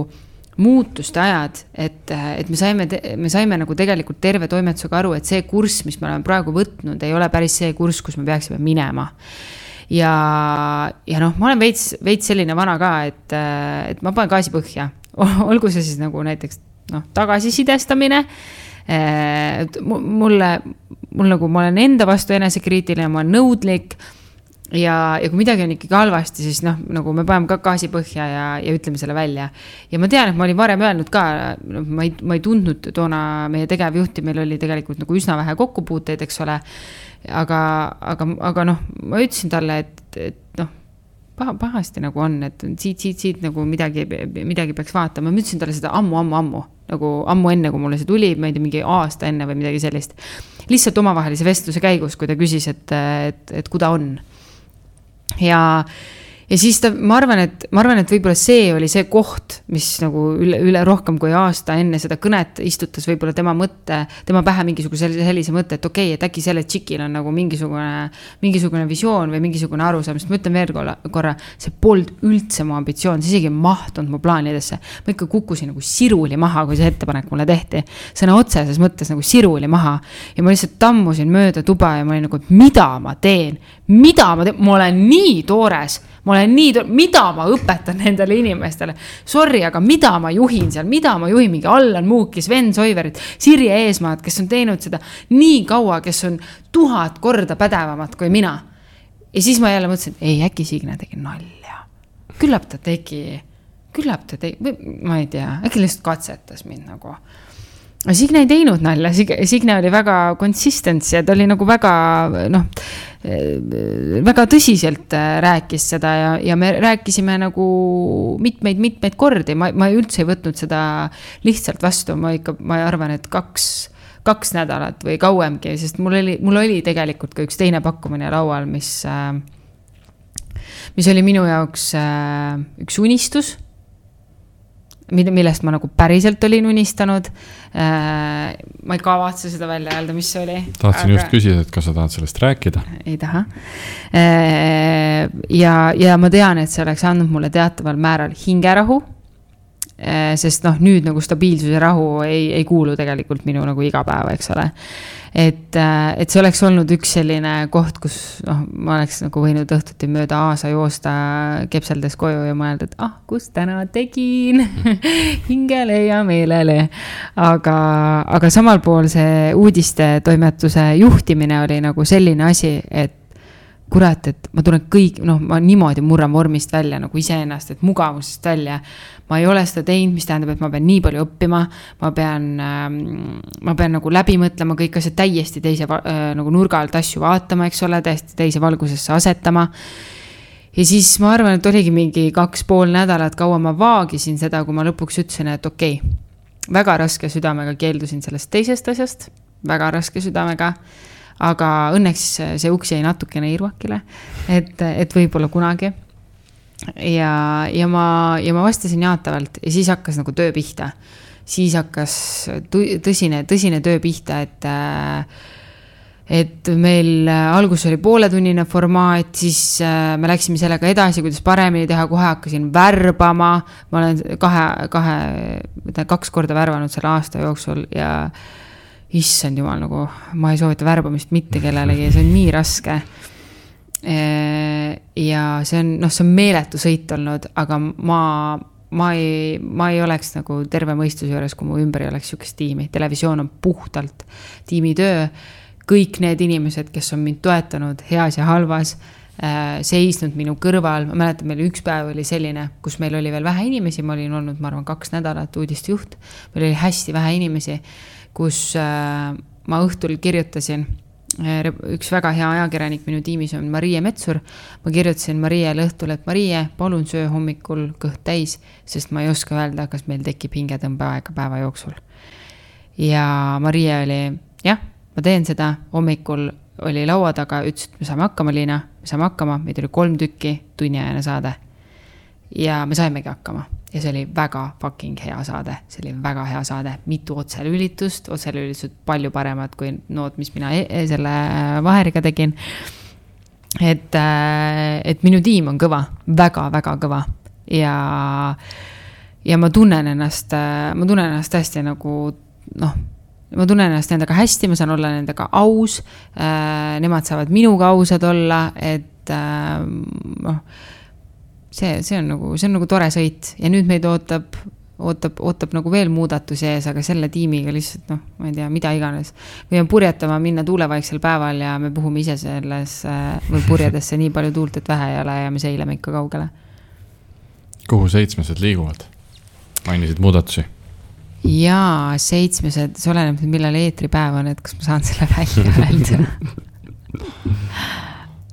muutuste ajad, et me saime nagu tegelikult terve toimetusega aru, et see kurss, mis me oleme praegu võtnud, ei ole päris see kurss, kus me peaksime minema. Ja ma olen veits selline vana ka, et ma panen gaasi põhja. Olgu see siis nagu näiteks tagasisidestamine. Mul nagu ma olen enda vastu enesekriitiline, ma olen nõudlik. Ja kui midagi on ikkagi halvasti, siis nagu me paneme ka gaasi põhja ja ütleme selle välja. Ja ma tean, et ma olin varem öelnud ka, ma ei tundnud toona meie tegevjuhti, meil oli tegelikult nagu üsna vähe kokkupuuteid, eks ole. Aga ma ütlesin talle, et pahasti nagu on, et siit nagu midagi peaks vaatama. Ma ütlesin talle seda ammu, nagu ammu enne, kui mulle see tuli, ma ei tea, mingi aasta enne või midagi sellist. Lihtsalt omavahelise vestluse käigus, kui ta küsis, et kui ta on. Ja siis ma arvan, et võib-olla see oli see koht, mis nagu üle rohkem kui aasta enne seda kõnet istutas võib-olla tema pähe mingisuguse sellise mõtte, et okei, et äkki selle tšikil on nagu mingisugune visioon või mingisugune arusaam, sest ma ütlen veel korra, see polnud üldse mu ambitsioon, see isegi mahtunud mu plaanidesse. Ma ikka kukkusin nagu siruli maha, kui see ettepanek mulle tehti. Sõna otseses mõttes nagu siruli maha ja ma lihtsalt tammusin mööda tuba ja ma olin nagu, et mida ma teen, ma olen nii toores, mida ma õpetan nendele inimestele. Sorry, aga mida ma juhin seal, mida ma juhin mingi Allan Muukis, Sven Soiverit, Sirje Eesmaad, kes on teinud seda nii kaua, kes on 1000 korda pädevamat kui mina. Ja siis ma jälle mõtlesin, et äkki Signe tegi nalja. Küllap ta tegi, ma ei tea, äkki lihtsalt katsetas mind nagu. Signe ei teinud nalja, Signe oli väga consistence ja ta oli nagu väga, väga tõsiselt rääkis seda ja me rääkisime nagu mitmeid kordi. Ma üldse ei võtnud seda lihtsalt vastu, ma arvan, et kaks nädalat või kauemgi, sest mul oli tegelikult ka üks teine pakkumine laual, mis oli minu jaoks üks unistus, millest ma nagu päriselt olin unistanud. Ma ei kavatse seda välja öelda, mis see oli. Tahtsin just küsida, et kas sa tahad sellest rääkida? Ei taha. Ja ma tean, et see oleks andnud mulle teataval määral hingerahu, sest nüüd nagu stabiilsus ja rahu ei kuulu tegelikult minu nagu igapäeva, eks ole. Et see oleks olnud üks selline koht, kus ma oleks nagu võinud õhtuti mööda aasa joosta kepseldes koju ja mõelda, et kus täna tegin hingele ja meelele. Aga samal pool see uudiste toimetuse juhtimine oli nagu selline asi, et kurat, et ma tulen ma niimoodi murran vormist välja nagu iseennast, et mugavusest välja. Ma ei ole seda teinud, mis tähendab, et ma pean nii palju õppima, ma pean nagu läbi mõtlema kõik asjad täiesti teise nagu nurga alt asju vaatama, eks ole, täiesti teise valgusesse asetama. Ja siis ma arvan, et oligi mingi 2,5 nädalat kaua ma vaagisin seda, kui ma lõpuks ütlesin, et okei, väga raske südamega keeldusin sellest teisest asjast, väga raske südamega. Aga õnneks see uks jäi natukene irvakile, et võib-olla kunagi. Ja ma vastasin jaatavalt ja siis hakkas nagu töö pihta. Siis hakkas tõsine töö pihta, et meil algus oli pooletunnine formaat, siis me läksime sellega edasi, kuidas paremini teha, kohe hakkasin värbama. Ma olen 2 korda värvanud selle aasta jooksul ja issand jumal, nagu ma ei soovita värbamist mitte kellelegi, see on nii raske. Ja see on meeletu sõit olnud, aga ma ei oleks nagu terve mõistuse juures, kui mu ümber ei oleks sükest tiimi. Televisioon on puhtalt tiimitöö. Kõik need inimesed, kes on mind toetanud heas ja halvas, seisnud minu kõrval. Ma mäletan, meil üks päev oli selline, kus meil oli veel vähe inimesi. Ma olin olnud, ma arvan, 2 nädalat uudistejuht. Meil oli hästi vähe inimesi, kus ma õhtul kirjutasin, üks väga hea ajakirjanik minu tiimis on Marie Metsur, ma kirjutasin Mariele õhtul, et Marie, palun söö hommikul kõht täis, sest ma ei oska öelda, kas meil tekib hingetõmbeaega päeva jooksul. Ja Marie oli, jah, ma teen seda, hommikul oli laua taga, ütles, et me saame hakkama, Liina, me saame hakkama, meid oli 3 tükki, tunniajane saade. Ja me saimegi hakkama. Ja see oli väga fucking hea saade. See oli väga hea saade. Mitu otselülitused palju paremad kui nood, mis mina selle Vaheriga tegin. Et minu tiim on kõva, väga kõva. Ja ma tunnen ennast hästi nagu, ma tunnen ennast nendega hästi, ma saan olla nendega aus. Nemad saavad minuga ausad olla, et see on nagu tore sõit ja nüüd meid ootab nagu veel muudatusi ees, aga selle tiimiga lihtsalt, ma ei tea, mida iganes. Või on purjetama minna tuulevaiksel päeval ja me puhume ise selles või purjedesse nii palju tuult, et vähe ei ole ja me seileme ikka kaugele. Kuhu 7 liiguvad? Mainisid muudatusi? Jaa, 7, see oleneb, millal eetripäev on, et kas ma saan selle välja öelda.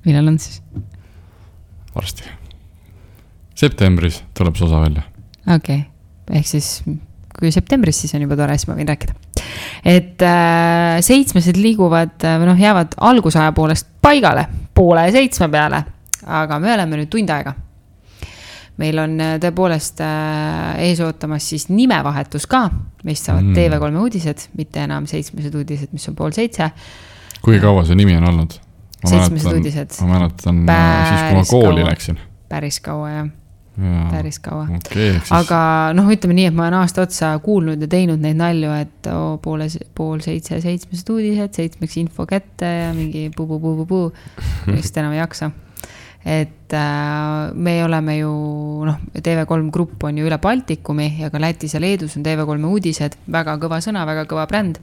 Millal on siis? Varsti. Septembris tuleb see osa välja. Okei, ehk siis kui septembris, siis on juba tore, siis ma võin rääkida. Et 7 liiguvad, jäävad algusaja poolest paigale, 6:30 peale, aga me oleme nüüd tund aega. Meil on tõepoolest ees ootamas siis nimevahetus ka, mis saavad TV3 uudised, mitte enam 7 uudised, mis on 6:30. Kui kaua see nimi on olnud? 7 uudised. Ma mäletan siis, kui ma kooli läksin. Päris kaua, jah. Päris kaua. Okay, aga ütleme nii, et ma olen aasta otsa kuulnud ja teinud neid nalju, et 6:30 7 uudised, 7 info kätte ja mingi puu, just enam ei jaksa. Et me oleme ju, TV3 grupp on ju üle Baltikumi ja ka Lätis ja Leedus on TV3 uudised, väga kõva sõna, väga kõva bränd.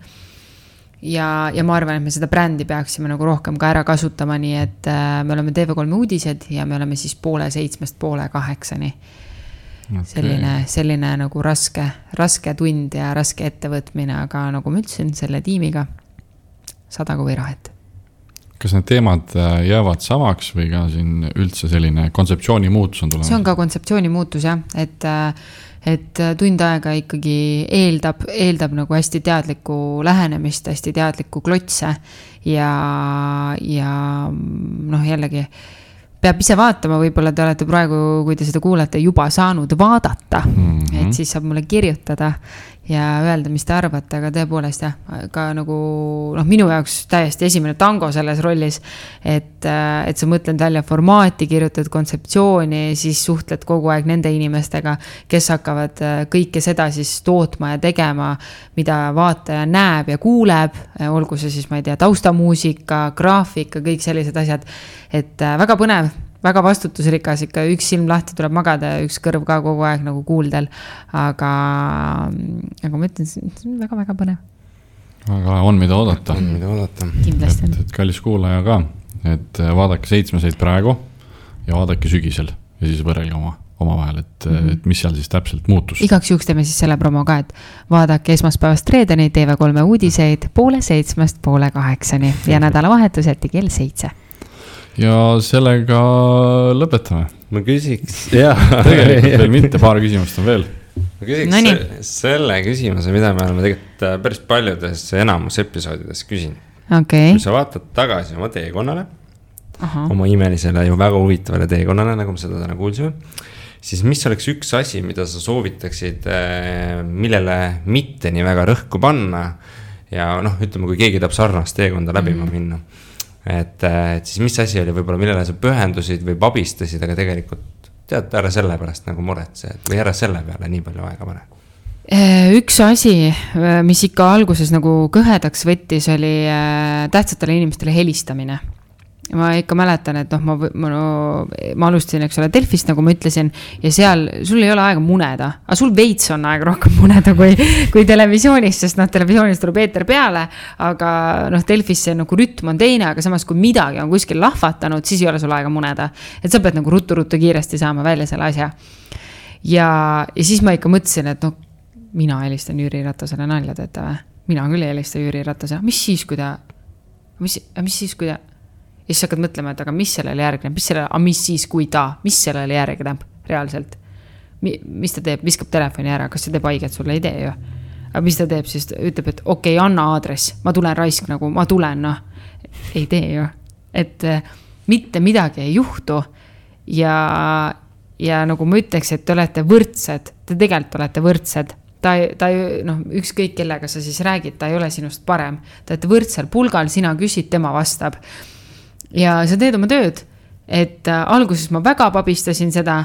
Ja ma arvan, et me seda brändi peaksime nagu rohkem ka ära kasutama, nii et me oleme TV3 uudised ja me oleme siis 6:30 8:00. selline nagu raske tund ja raske ettevõtmine, aga nagu ma ütlesin, selle tiimiga 100 kui rahet. Kas need teemad jäävad samaks või ka siin üldse selline kontseptsiooni muutus on tulemas? See on ka kontseptsiooni muutus jah, et tund aega ikkagi eeldab nagu hästi teadlikku lähenemist, hästi teadlikku klotse ja noh jällegi peab ise vaatama, võib-olla te olete praegu, kui te seda kuulete, juba saanud vaadata, et siis saab mulle kirjutada ja öelda, mis te arvate, aga tõepoolest jah, ka nagu minu jaoks täiesti esimene tango selles rollis, et sa mõtled välja formaati, kirjutad kontseptsiooni, siis suhtled kogu aeg nende inimestega, kes hakkavad kõike seda siis tootma ja tegema, mida vaataja näeb ja kuuleb, olgu see siis, ma ei tea, taustamuusika, graafika, kõik sellised asjad, et väga põnev, väga vastutusrikas, ikka üks silm lahti tuleb magada ja üks kõrv ka kogu aeg nagu kuuldel, aga ma ütlen, see on väga-väga põnev. Aga on mida oodata. Kindlasti on. Et kallis kuulaja ka, et vaadake 7 praegu ja vaadake sügisel ja siis võrrelge oma vahel, et mis seal siis täpselt muutus. Igaks juhuks teeme siis selle promo ka, et vaadake esmaspäevast reedeni TV3 uudiseid 7:30 8:30 ja nädalavahetuseti kell 7. Ja sellega lõpetame. Ma küsiks, jah. Tegelikult veel mitte, paar küsimust on veel. Ma küsiks selle küsimuse, mida me oleme tegelikult päris paljudes enamus episoodides küsin. Okay. Kui sa vaatad tagasi oma teekonnale, oma imelisele ju väga huvitavale teekonnale, nagu me seda täna kuulsime, siis mis oleks üks asi, mida sa soovitaksid, millele mitte nii väga rõhku panna ja ütleme, kui keegi tahab sarnast teekonda läbima minna. Et siis mis asi oli võib-olla, millele sa pühendusid või abistasid, aga tegelikult tead, ära selle pärast nagu muretse või ära selle peale nii palju aega pane? Üks asi, mis ikka alguses nagu kõhedaks võttis, oli tähtsatele inimestele helistamine. Ma ikka mäletan, et ma alustasin, eks ole, Delfist, nagu ma ütlesin, ja seal sul ei ole aega muneda, aga sul veits on aega rohkem muneda kui televisioonis, sest televisioonis tuleb eeter peale, aga Delfis see nagu rütm on teine, aga samas kui midagi on kuskil lahvatanud, siis ei ole sul aega muneda. Et sa pead nagu ruttu kiiresti saama välja selle asja. Ja siis ma ikka mõtlesin, et mina helistan Jüri Ratasele nalja teete või? Mina küll ei helista Jüri Ratasele. Mis siis, kui ta... Ja siis hakkad mõtlema, et aga mis sellele järgneb, mis siis, kui ta, mis sellele järgneb reaalselt. Mis ta teeb, viskab telefoni ära, kas see teeb haiget sulle, ei tee ju. Aga mis ta teeb, siis ütleb, et okei, anna aadress, ma tulen raisk nagu, ma tulen, ei tee ju. Et mitte midagi ei juhtu ja nagu ma ütleks, et te olete võrdsed, te tegelikult olete võrdsed. Ta ükskõik kellega sa siis räägid, ta ei ole sinust parem. Te olete võrdsel pulgal, sina küsid, tema vastab. Ja sa teed oma tööd, et alguses ma väga pabistasin seda,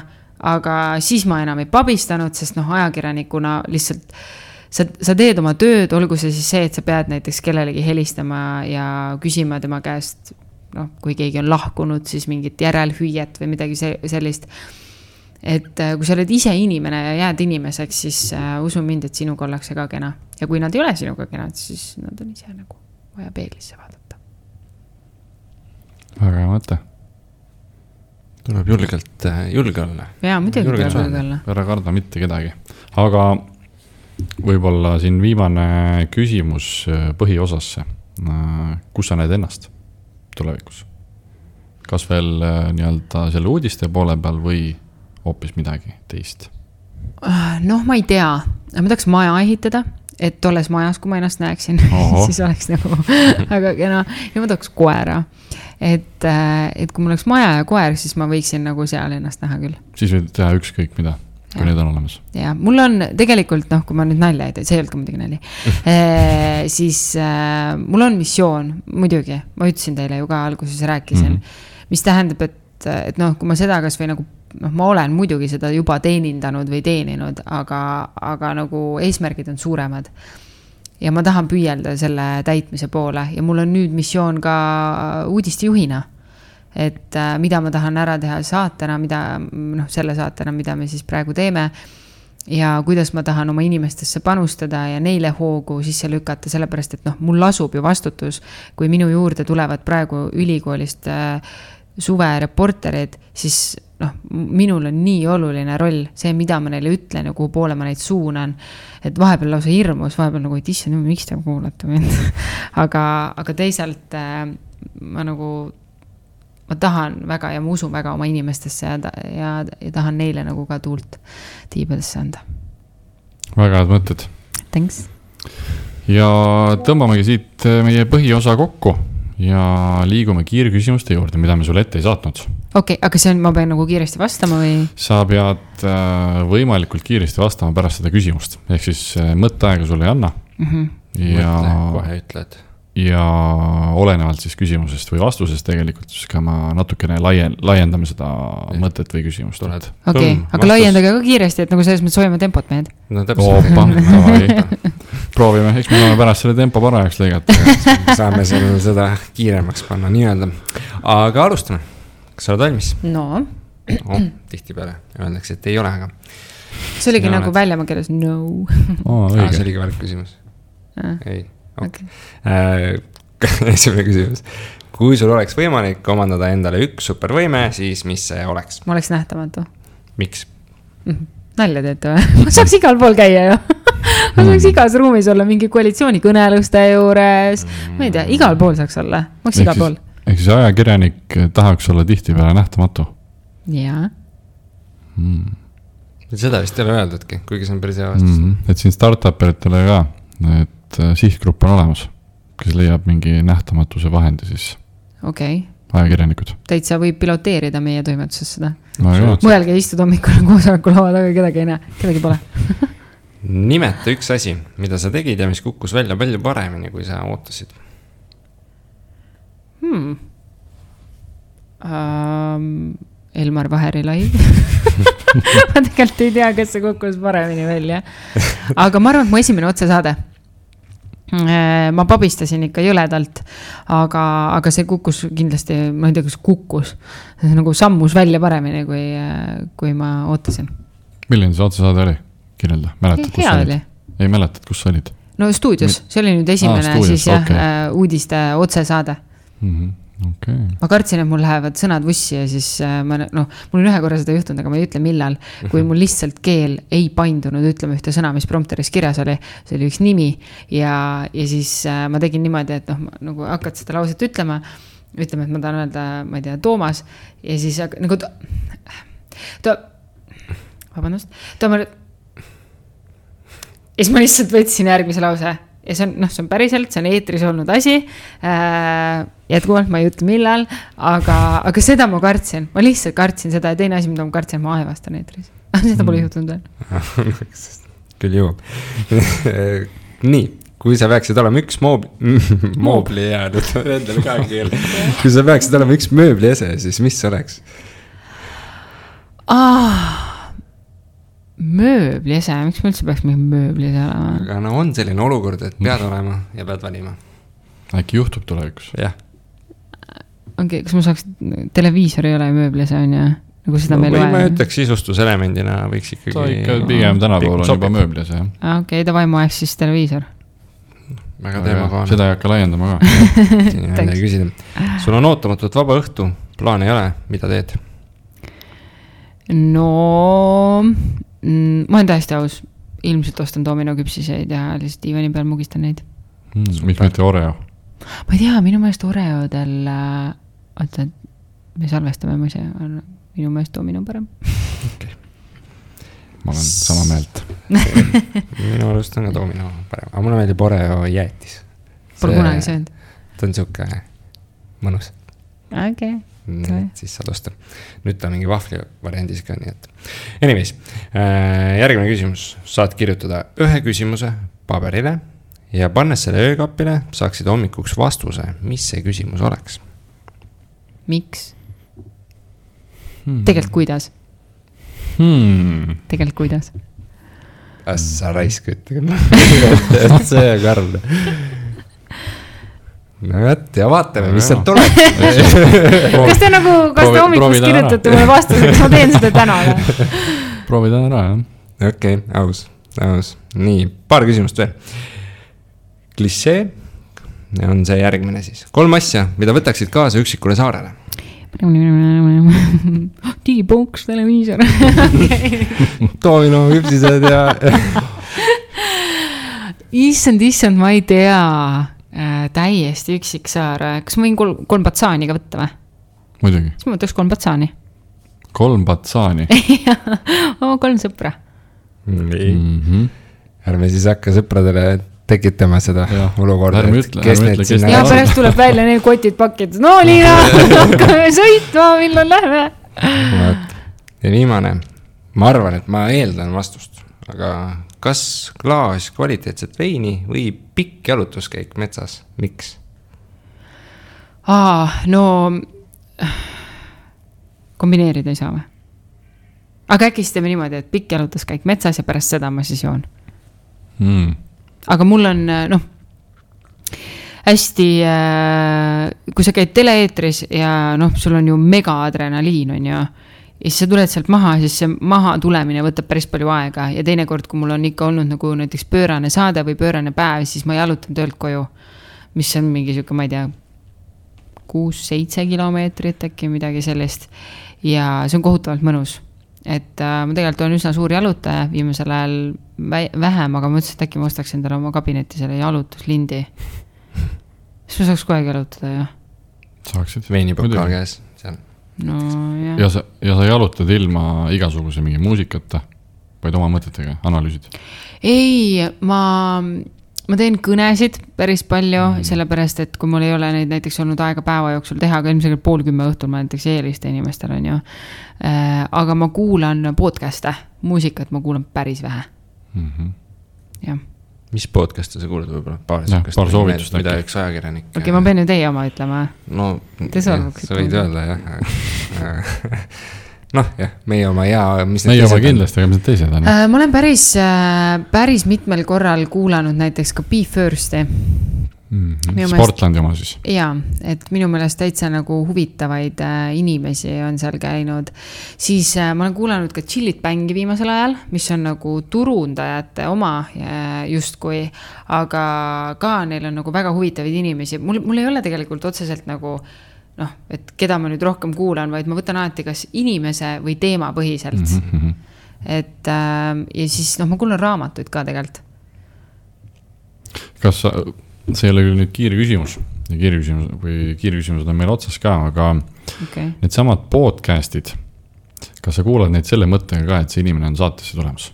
aga siis ma enam ei pabistanud, sest ajakirjanikuna lihtsalt sa teed oma tööd, olgu see siis see, et sa pead näiteks kellelegi helistama ja küsima tema käest, kui keegi on lahkunud, siis mingit järelhüüet või midagi sellist. Et kui sa oled ise inimene ja jääd inimeseks, siis usu mind, et sinuga ollakse ka kena. Ja kui nad ei ole sinuga kenad, siis nad on ise nagu vaja peeglisse vaadata. Väga hea mõte. Tuleb julge olla. Jaa, muidugi tuleb julge olla. Ära karda mitte kedagi. Aga võib-olla siin viimane küsimus põhiosasse. Kus sa näed ennast tulevikus? Kas veel nii-öelda selle uudiste poole peal või hoopis midagi teist? Ma ei tea. Ma tahaks maja ehitada, et olles majas, kui ma ennast näeksin, siis oleks nagu väga kena. Ja ma tahaks koera. Et kui mul oleks maja ja koer, siis ma võiksin nagu seal ennast näha küll. Siis võid teha ükskõik mida, kui need on olemas. Ja mul on tegelikult, kui ma nüüd nalja ei tee, see ei olnud ka muidugi nali, siis mul on missioon, muidugi, ma ütlesin teile ju ka alguses rääkisin, mis tähendab, et kui ma seda kas või nagu, ma olen muidugi seda juba teenindanud või teeninud, aga nagu eesmärgid on suuremad. Ja ma tahan püüelda selle täitmise poole ja mul on nüüd missioon ka uudistejuhina, et mida ma tahan ära teha saatena, selle saatena, mida me siis praegu teeme ja kuidas ma tahan oma inimestesse panustada ja neile hoogu sisse lükata, sellepärast, et mul lasub ju vastutus, kui minu juurde tulevad praegu ülikoolist suve reporterid, siis noh, minul on nii oluline roll, see, mida ma neile ütlen ja kuhu poole ma neid suunan, et vahepeal lausa hirmus, vahepeal nagu, et issand, miks te kuulate mind. aga teisalt ma nagu, ma tahan väga ja ma usun väga oma inimestesse ja tahan neile nagu ka tuult tiibadesse anda. Väga head mõtted. Thanks. Ja tõmbamegi siit meie põhiosa kokku ja liigume kiirküsimuste juurde, mida me sulle ette ei saatnud. Okei, aga see on, ma pean nagu kiiresti vastama või? Sa pead võimalikult kiiresti vastama pärast seda küsimust. Ehk siis mõtteaega sulle ei anna. Ja, kohe ütled. Ja olenevalt siis küsimusest või vastusest tegelikult, siis ka ma natukene laiendame seda mõtet või küsimust. Okei, aga laiendage ka kiiresti, et nagu selles mõttes hoiame tempot mehed. No täpselt. Proovime, eks me saame pärast selle tempo parajaks lõigata. Saame seda kiiremaks panna nii-öelda. Aga alustame. Kas sa oled valmis? No. Tihti peale öeldakse, et ei ole, aga. See oligi nagu väljama keeles no. See oligi valik küsimus. Ei. Okay. Esimene küsimus. Kui sul oleks võimalik omandada endale üks supervõime, siis mis see oleks? Ma oleks nähtamatu. Miks? Nalja teete või? Ma saaks igal pool käia ju. Ma saaks igas ruumis olla mingi koalitsiooni kõneluste juures. Ma ei tea, igal pool saaks olla. Ma oleks igal pool. Ehk siis ajakirjanik tahaks olla tihti peale nähtamatu? Jaa. Seda vist ei ole öeldudki, kuigi see on päris hea vastus. Et siin startuperitele ka, et sihtgrupp on olemas, kes leiab mingi nähtamatuse vahendi siis. Okei. Ajakirjanikud. Täitsa võib piloteerida meie toimetuses seda. No, mõelge istud hommikul koosoleku laua taga, kedagi ei näe, kedagi pole. Nimeta üks asi, mida sa tegid ja mis kukkus välja palju paremini, kui sa ootasid. Elmar Vaheri live. Ma tegelikult ei tea, kas see kukkus paremini välja. Aga ma arvan, et mu esimene otsesaade. Ma pabistasin ikka jõledalt, aga see kukkus kindlasti, ma ei tea, kas kukkus. See nagu sammus välja paremini, kui ma ootasin. Milline see otsesaade oli? Kirjelda. Mäletad, kus olid? Ei mäletad, kus olid? No stuudios. See oli nüüd esimene stuudios, siis jah, uudiste otsesaade. Okay. Ma kartsin, et mul lähevad sõnad vussi ja siis mul on ühe korra seda juhtunud, aga ma ei ütle millal, kui mul lihtsalt keel ei paindunud ütlema ühte sõna, mis prompteris kirjas oli, see oli üks nimi ja siis ma tegin niimoodi, et nagu hakkad seda lauset ütlema, et ma tahan öelda, ma ei tea, Toomas ja siis nagu vabandust, ja siis ma lihtsalt võtsin järgmise lause ja see on päriselt, see on eetris olnud asi, jätkuvalt ma ei ütle millal, aga seda ma kartsin, ma lihtsalt kartsin seda ja teine asi, mida ma kartsin, ma aevastan eetris. Seda pole juhtunud veel. Küll jõuab. Nii, kui sa peaksid olema üks moobli jäänud, endale ka keel. Kui sa peaksid olema üks mööbli ese, siis mis oleks? Mööbli ese, miks ma üldse peaks mingi mööbli ese olema? Aga on selline olukord, et pead olema ja pead valima. Äkki juhtub tulevikus? Jah. Okei, kas ma saaks, televiisor ei ole mööbli ese on ja nagu seda meil vaja? Või ma ütleks sisustuselemendina võiks ikkagi... Ta ikka pigem tänapäeval on juba mööbli ese. Okei, davai, ma eks siis televiisor. Väga teemakohane. Seda ei hakka laiendama ka. Siin ei küsida. Sul on ootamatult vaba õhtu, plaan ei ole, mida teed? No... ma olen täiesti aus, ilmselt ostan domino küpsiseid ja lihtsalt diivani peal mugistan neid. Miks mitte Oreo? Ma ei tea, minu meelest Oreodel, oota, me salvestame mõise, minu meelest domino parem. Okay. Ma olen sama meelt. Minu meelest on ka domino parem, aga mulle meeldib Oreo jäätis. Pole kunagi söönud. Ta on siuke mõnus. Okei. Siis saad osta. Nüüd ta mingi vahvli variandis ka, nii et. Anyways, järgmine küsimus. Saad kirjutada ühe küsimuse paberile ja pannes selle öökapile saaksid hommikuks vastuse, mis see küsimus oleks. Miks? Tegelikult kuidas? Tegelikult kuidas? Sa raisk ütle. See on karl. No ja vaatame, mis sealt tuleb. Kas te nagu, kas te hommikust kirjutate mulle vastuse, kas ma teen seda täna? Proovida ära, jah. Okei, aus. Nii, paar küsimust veel. Klišee on see järgmine siis. 3 asja, mida võtaksid kaasa üksikule saarele? digipunks, televiisor. Domino, hüpsised ja... Issand, ma ei tea. Täiesti üksik saar. Kas ma võin 3 patsaani ka võtta või? Muidugi. Siis ma võtaks 3 patsaani. 3 patsaani? Oma 3 sõpra. Ärme siis hakka sõpradele tekitama seda olukorda. Ja pärast tuleb välja need kotid pakid. No Liina, hakkame sõitma, millal lähme. Ja viimane. Ma arvan, et ma eeldan vastust. Aga kas klaas kvaliteetset veini või pikk jalutuskäik metsas? Miks? No kombineerida ei saa või? Aga äkki siis teeme niimoodi, et pikk jalutuskäik metsas ja pärast seda ma siis joon. Aga mul on, hästi, kui sa käid teleeetris ja sul on ju mega adrenaliin, on ju, ja siis sa tuled sealt maha, siis see maha tulemine võtab päris palju aega ja teinekord, kui mul on ikka olnud nagu näiteks pöörane saade või pöörane päev, siis ma jalutan töölt koju, mis on mingi siuke, ma ei tea, 6-7 kilomeetrit äkki midagi sellist ja see on kohutavalt mõnus. Et ma tegelikult olen üsna suur jalutaja, viimasel ajal vähem, aga ma mõtlesin, et äkki ma ostaks endale oma kabinetti selle jalutuslindi. Siis ma saaks kogu jalutada, jah. Saaksid. Veinipokal käes seal. No, ja sa jalutad ilma igasuguse mingi muusikata, vaid oma mõtetega, analüüsid? Ei, ma teen kõnesid päris palju, sellepärast, et kui mul ei ole neid näiteks olnud aega päeva jooksul teha, aga ilmselt 9:30 õhtul ma näiteks eeliste inimestel on ju. Aga ma kuulan podcast'e, muusikat ma kuulan päris vähe. Ja. Mis podcast'e sa kuulad võib-olla? Paar soovitust. Mida üks ajakirjanik. Okei, ma pean ju teie oma ütlema. No, sa võid öelda, jah. Jah, meie oma ja... Meie oma kindlasti, aga mis need teised on? Ma olen päris mitmel korral kuulanud näiteks ka Be First'i. Sportlandi oma siis. Jaa, et minu meelest täitsa nagu huvitavaid inimesi on seal käinud. Siis ma olen kuulanud ka Chillit Bängi viimasel ajal, mis on nagu turundajate oma justkui, aga ka neil on nagu väga huvitavaid inimesi. Mul ei ole tegelikult otseselt nagu et keda ma nüüd rohkem kuulan, vaid ma võtan alati kas inimese või teema põhiselt. Et ja siis ma kuulan raamatuid ka tegelikult. Kas see ei ole küll nüüd kiirküsimus või kiirküsimused on meil otsas ka, aga need samad podcastid, kas sa kuulad neid selle mõttega ka, et see inimene on saatesse tulemas?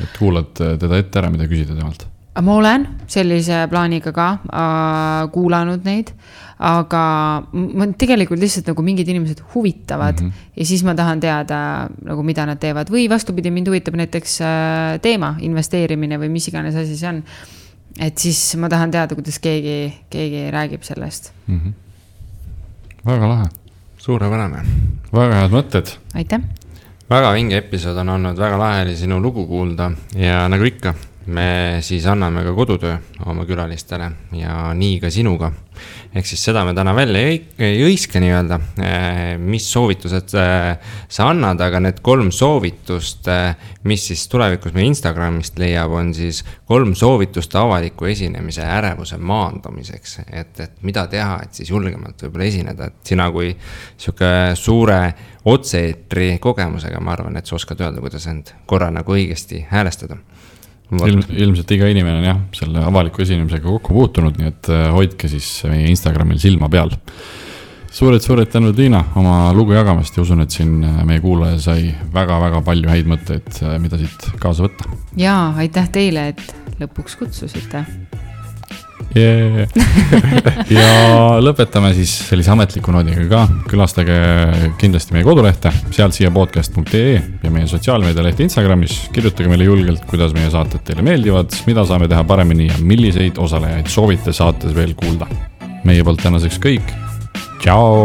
Et kuulad teda ette ära, mida küsida temalt? Ma olen sellise plaaniga ka kuulanud neid, aga ma tegelikult lihtsalt nagu mingid inimesed huvitavad ja siis ma tahan teada, nagu mida nad teevad. Või vastupidi, mind huvitab näiteks teema, investeerimine või mis iganes asi see on. Et siis ma tahan teada, kuidas keegi räägib sellest. Väga lahe. Suurepärane. Väga head mõtted. Aitäh. Väga vinge episood on olnud, väga lahe oli sinu lugu kuulda ja nagu ikka, me siis anname ka kodutöö oma külalistele ja nii ka sinuga. Ehk siis seda me täna välja ei õiska nii öelda, mis soovitused sa annad, aga need 3 soovitust, mis siis tulevikus me Instagramist leiab, on siis 3 soovitust avaliku esinemise ärevuse maandamiseks. Et mida teha, et siis julgemalt võib-olla esineda. Et sina kui siuke suure otseetri kogemusega, ma arvan, et sa oskad öelda, kuidas end korra nagu õigesti häälestada. Ilmselt iga inimene on jah, selle avaliku esinemisega kokku puutunud, nii et hoidke siis meie Instagramil silma peal. Suured tänud Liina oma lugu jagamast ja usun, et siin meie kuulaja sai väga-väga palju häid mõtteid, mida siit kaasa võtta. Jaa, aitäh teile, et lõpuks kutsusite. Ja lõpetame siis sellise ametliku noodiga ka. Külastage kindlasti meie kodulehte sealtsiapodcast.ee ja meie sotsiaalmeedialehte Instagramis. Kirjutage meile julgelt, kuidas meie saated teile meeldivad, mida saame teha paremini ja milliseid osalejaid soovite saates veel kuulda. Meie poolt tänaseks kõik. Ciao!